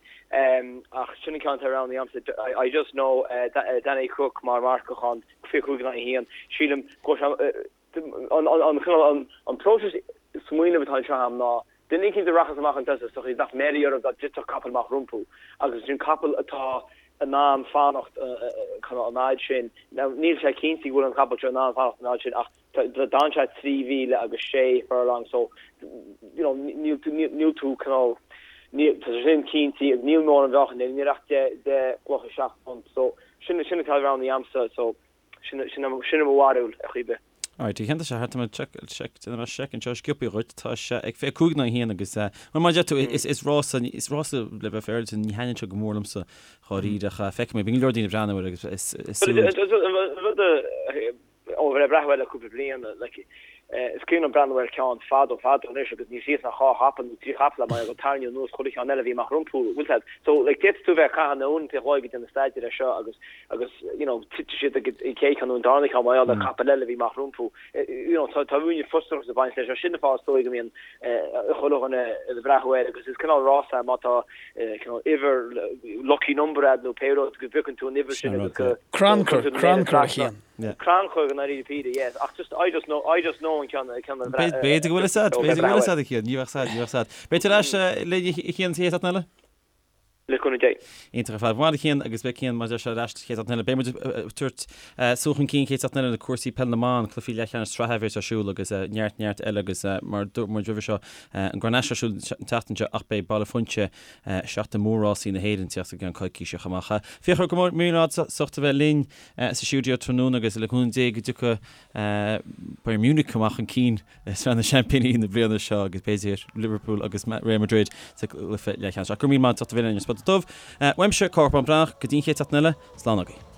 E: ach sin an ceann atá roghnaithe a'msa, I Just Know, Danny Cooke mar mharcach ann, 25 in aghaidh 1. Sílim go bhfuil sé, An cineál, an próiseas smaoinimh atá anseo agam ná duine eicínt a rachas amach chun tosaigh is dócha bheadh meidhrí orthu dá dtitfeadh capall amach rompu agus ansin capall atá in ann fanacht cineál an fhad sin. Now níl sé cinnte go bhfuil an capall seo in ann fanacht an fhad sin ach d'fhan sé 3 mhíle agus 6 furlong so you know níl tú níl tú cineál níl tá sé sin cinnte agus níl mórán mheáchain níl ach 10 10 gcloch 7 phunt so sin sin atá roghnaithe a'msa so Sin sin mo bharúil ar chaoi ar bith.
A: Alright, a Chian tá sé thart mé check check déanfaidh mé seic anseo sciobtha dhuit tá sé ag 25 in aghaidh 1 agus eh mar mar a deir tú is is rás is rás le bheith féaráilte ní thaitníonn sé go mór liomsa dháiríre ach feicfidh mé bíonn go leor daoine ag breathnú air agus is is súil
E: Rud ó bheith ag breathnú air le cúpla bliain like. Is cuimhin liom breathnú ar cheann fadó fadó anois agus ní raibh ach dhá chapall nó trí chapall mar gur tarraingíodh anuas chuile cheann eile a bhí amach rompu, bhfuil 'fhios a'd. So like d'fhéadfadh tú bheith ag caitheamh na uaireanta an chloig ag déanamh staidéir air seo agus agus you know titfidh siad ag an chéad cheann nó an darna ceann mar gheall ar capall eile a bhí amach rompu. You know tá tá ruainne frustrachas ag baint leis seo. Sin an fáth is dóigh go mbíonn chuile dhuine ag breathnú air agus is cineál rás é má tá cineál uimhir lucky number a'd nó pé rud go bpiocann tú an uimhir sin agus go
C: Crannchur, crannchur a Chian.
E: Crannchur i ndáiríre píre, yes. Ach just, I just know, I just know an ceann, ceann a
A: bhreath. B'fhéidir go bhfuil fhios a'd, b'fhéidir go bhfuil fhios a'd a Chian, ní bheadh fhios a'd, ní bheadh fhios a'd. Beidh tú ar ais linn a Chian sa chéad seachtain eile?
E: Le cúnamh Dé.
A: Iontach ar fad. Maith a Chian agus beidh Cian mar a deir sé ar ais sa chéad seachtain eile. Beidh muid ag tabhairt súil chun cinn chéad seachtain eile na cúrsaí peile na mban, cluichí leathcheannais sraithe a bheas ar siúl agus neart neart eile agus mar a dúirt muid roimhe seo an Grand National ar siúl an tseachtain seo ach beidh Baile Phuinse Seachtain Mhór Rásaí na hÉireann ag teacht i gceann coicíse chomh maith. Fiachra, go raibh míle maith agat as ucht a bheith linn sa stiúideo tráthnóna agus le cúnamh Dé go dtiocfaidh Bayern Munich amach chun cinn i Sraith na Seaimpíní na bliana seo agus b'fhéidir Liverpool agus Real Madrid sa gcluiche leathcheannais. Ach go raibh míle maith agat as ucht a bheith linn ar Spota Dubh. Uaimse, Cárthach Bán Breathnach, go dtí an chéad seachtain eile, slán agaibh.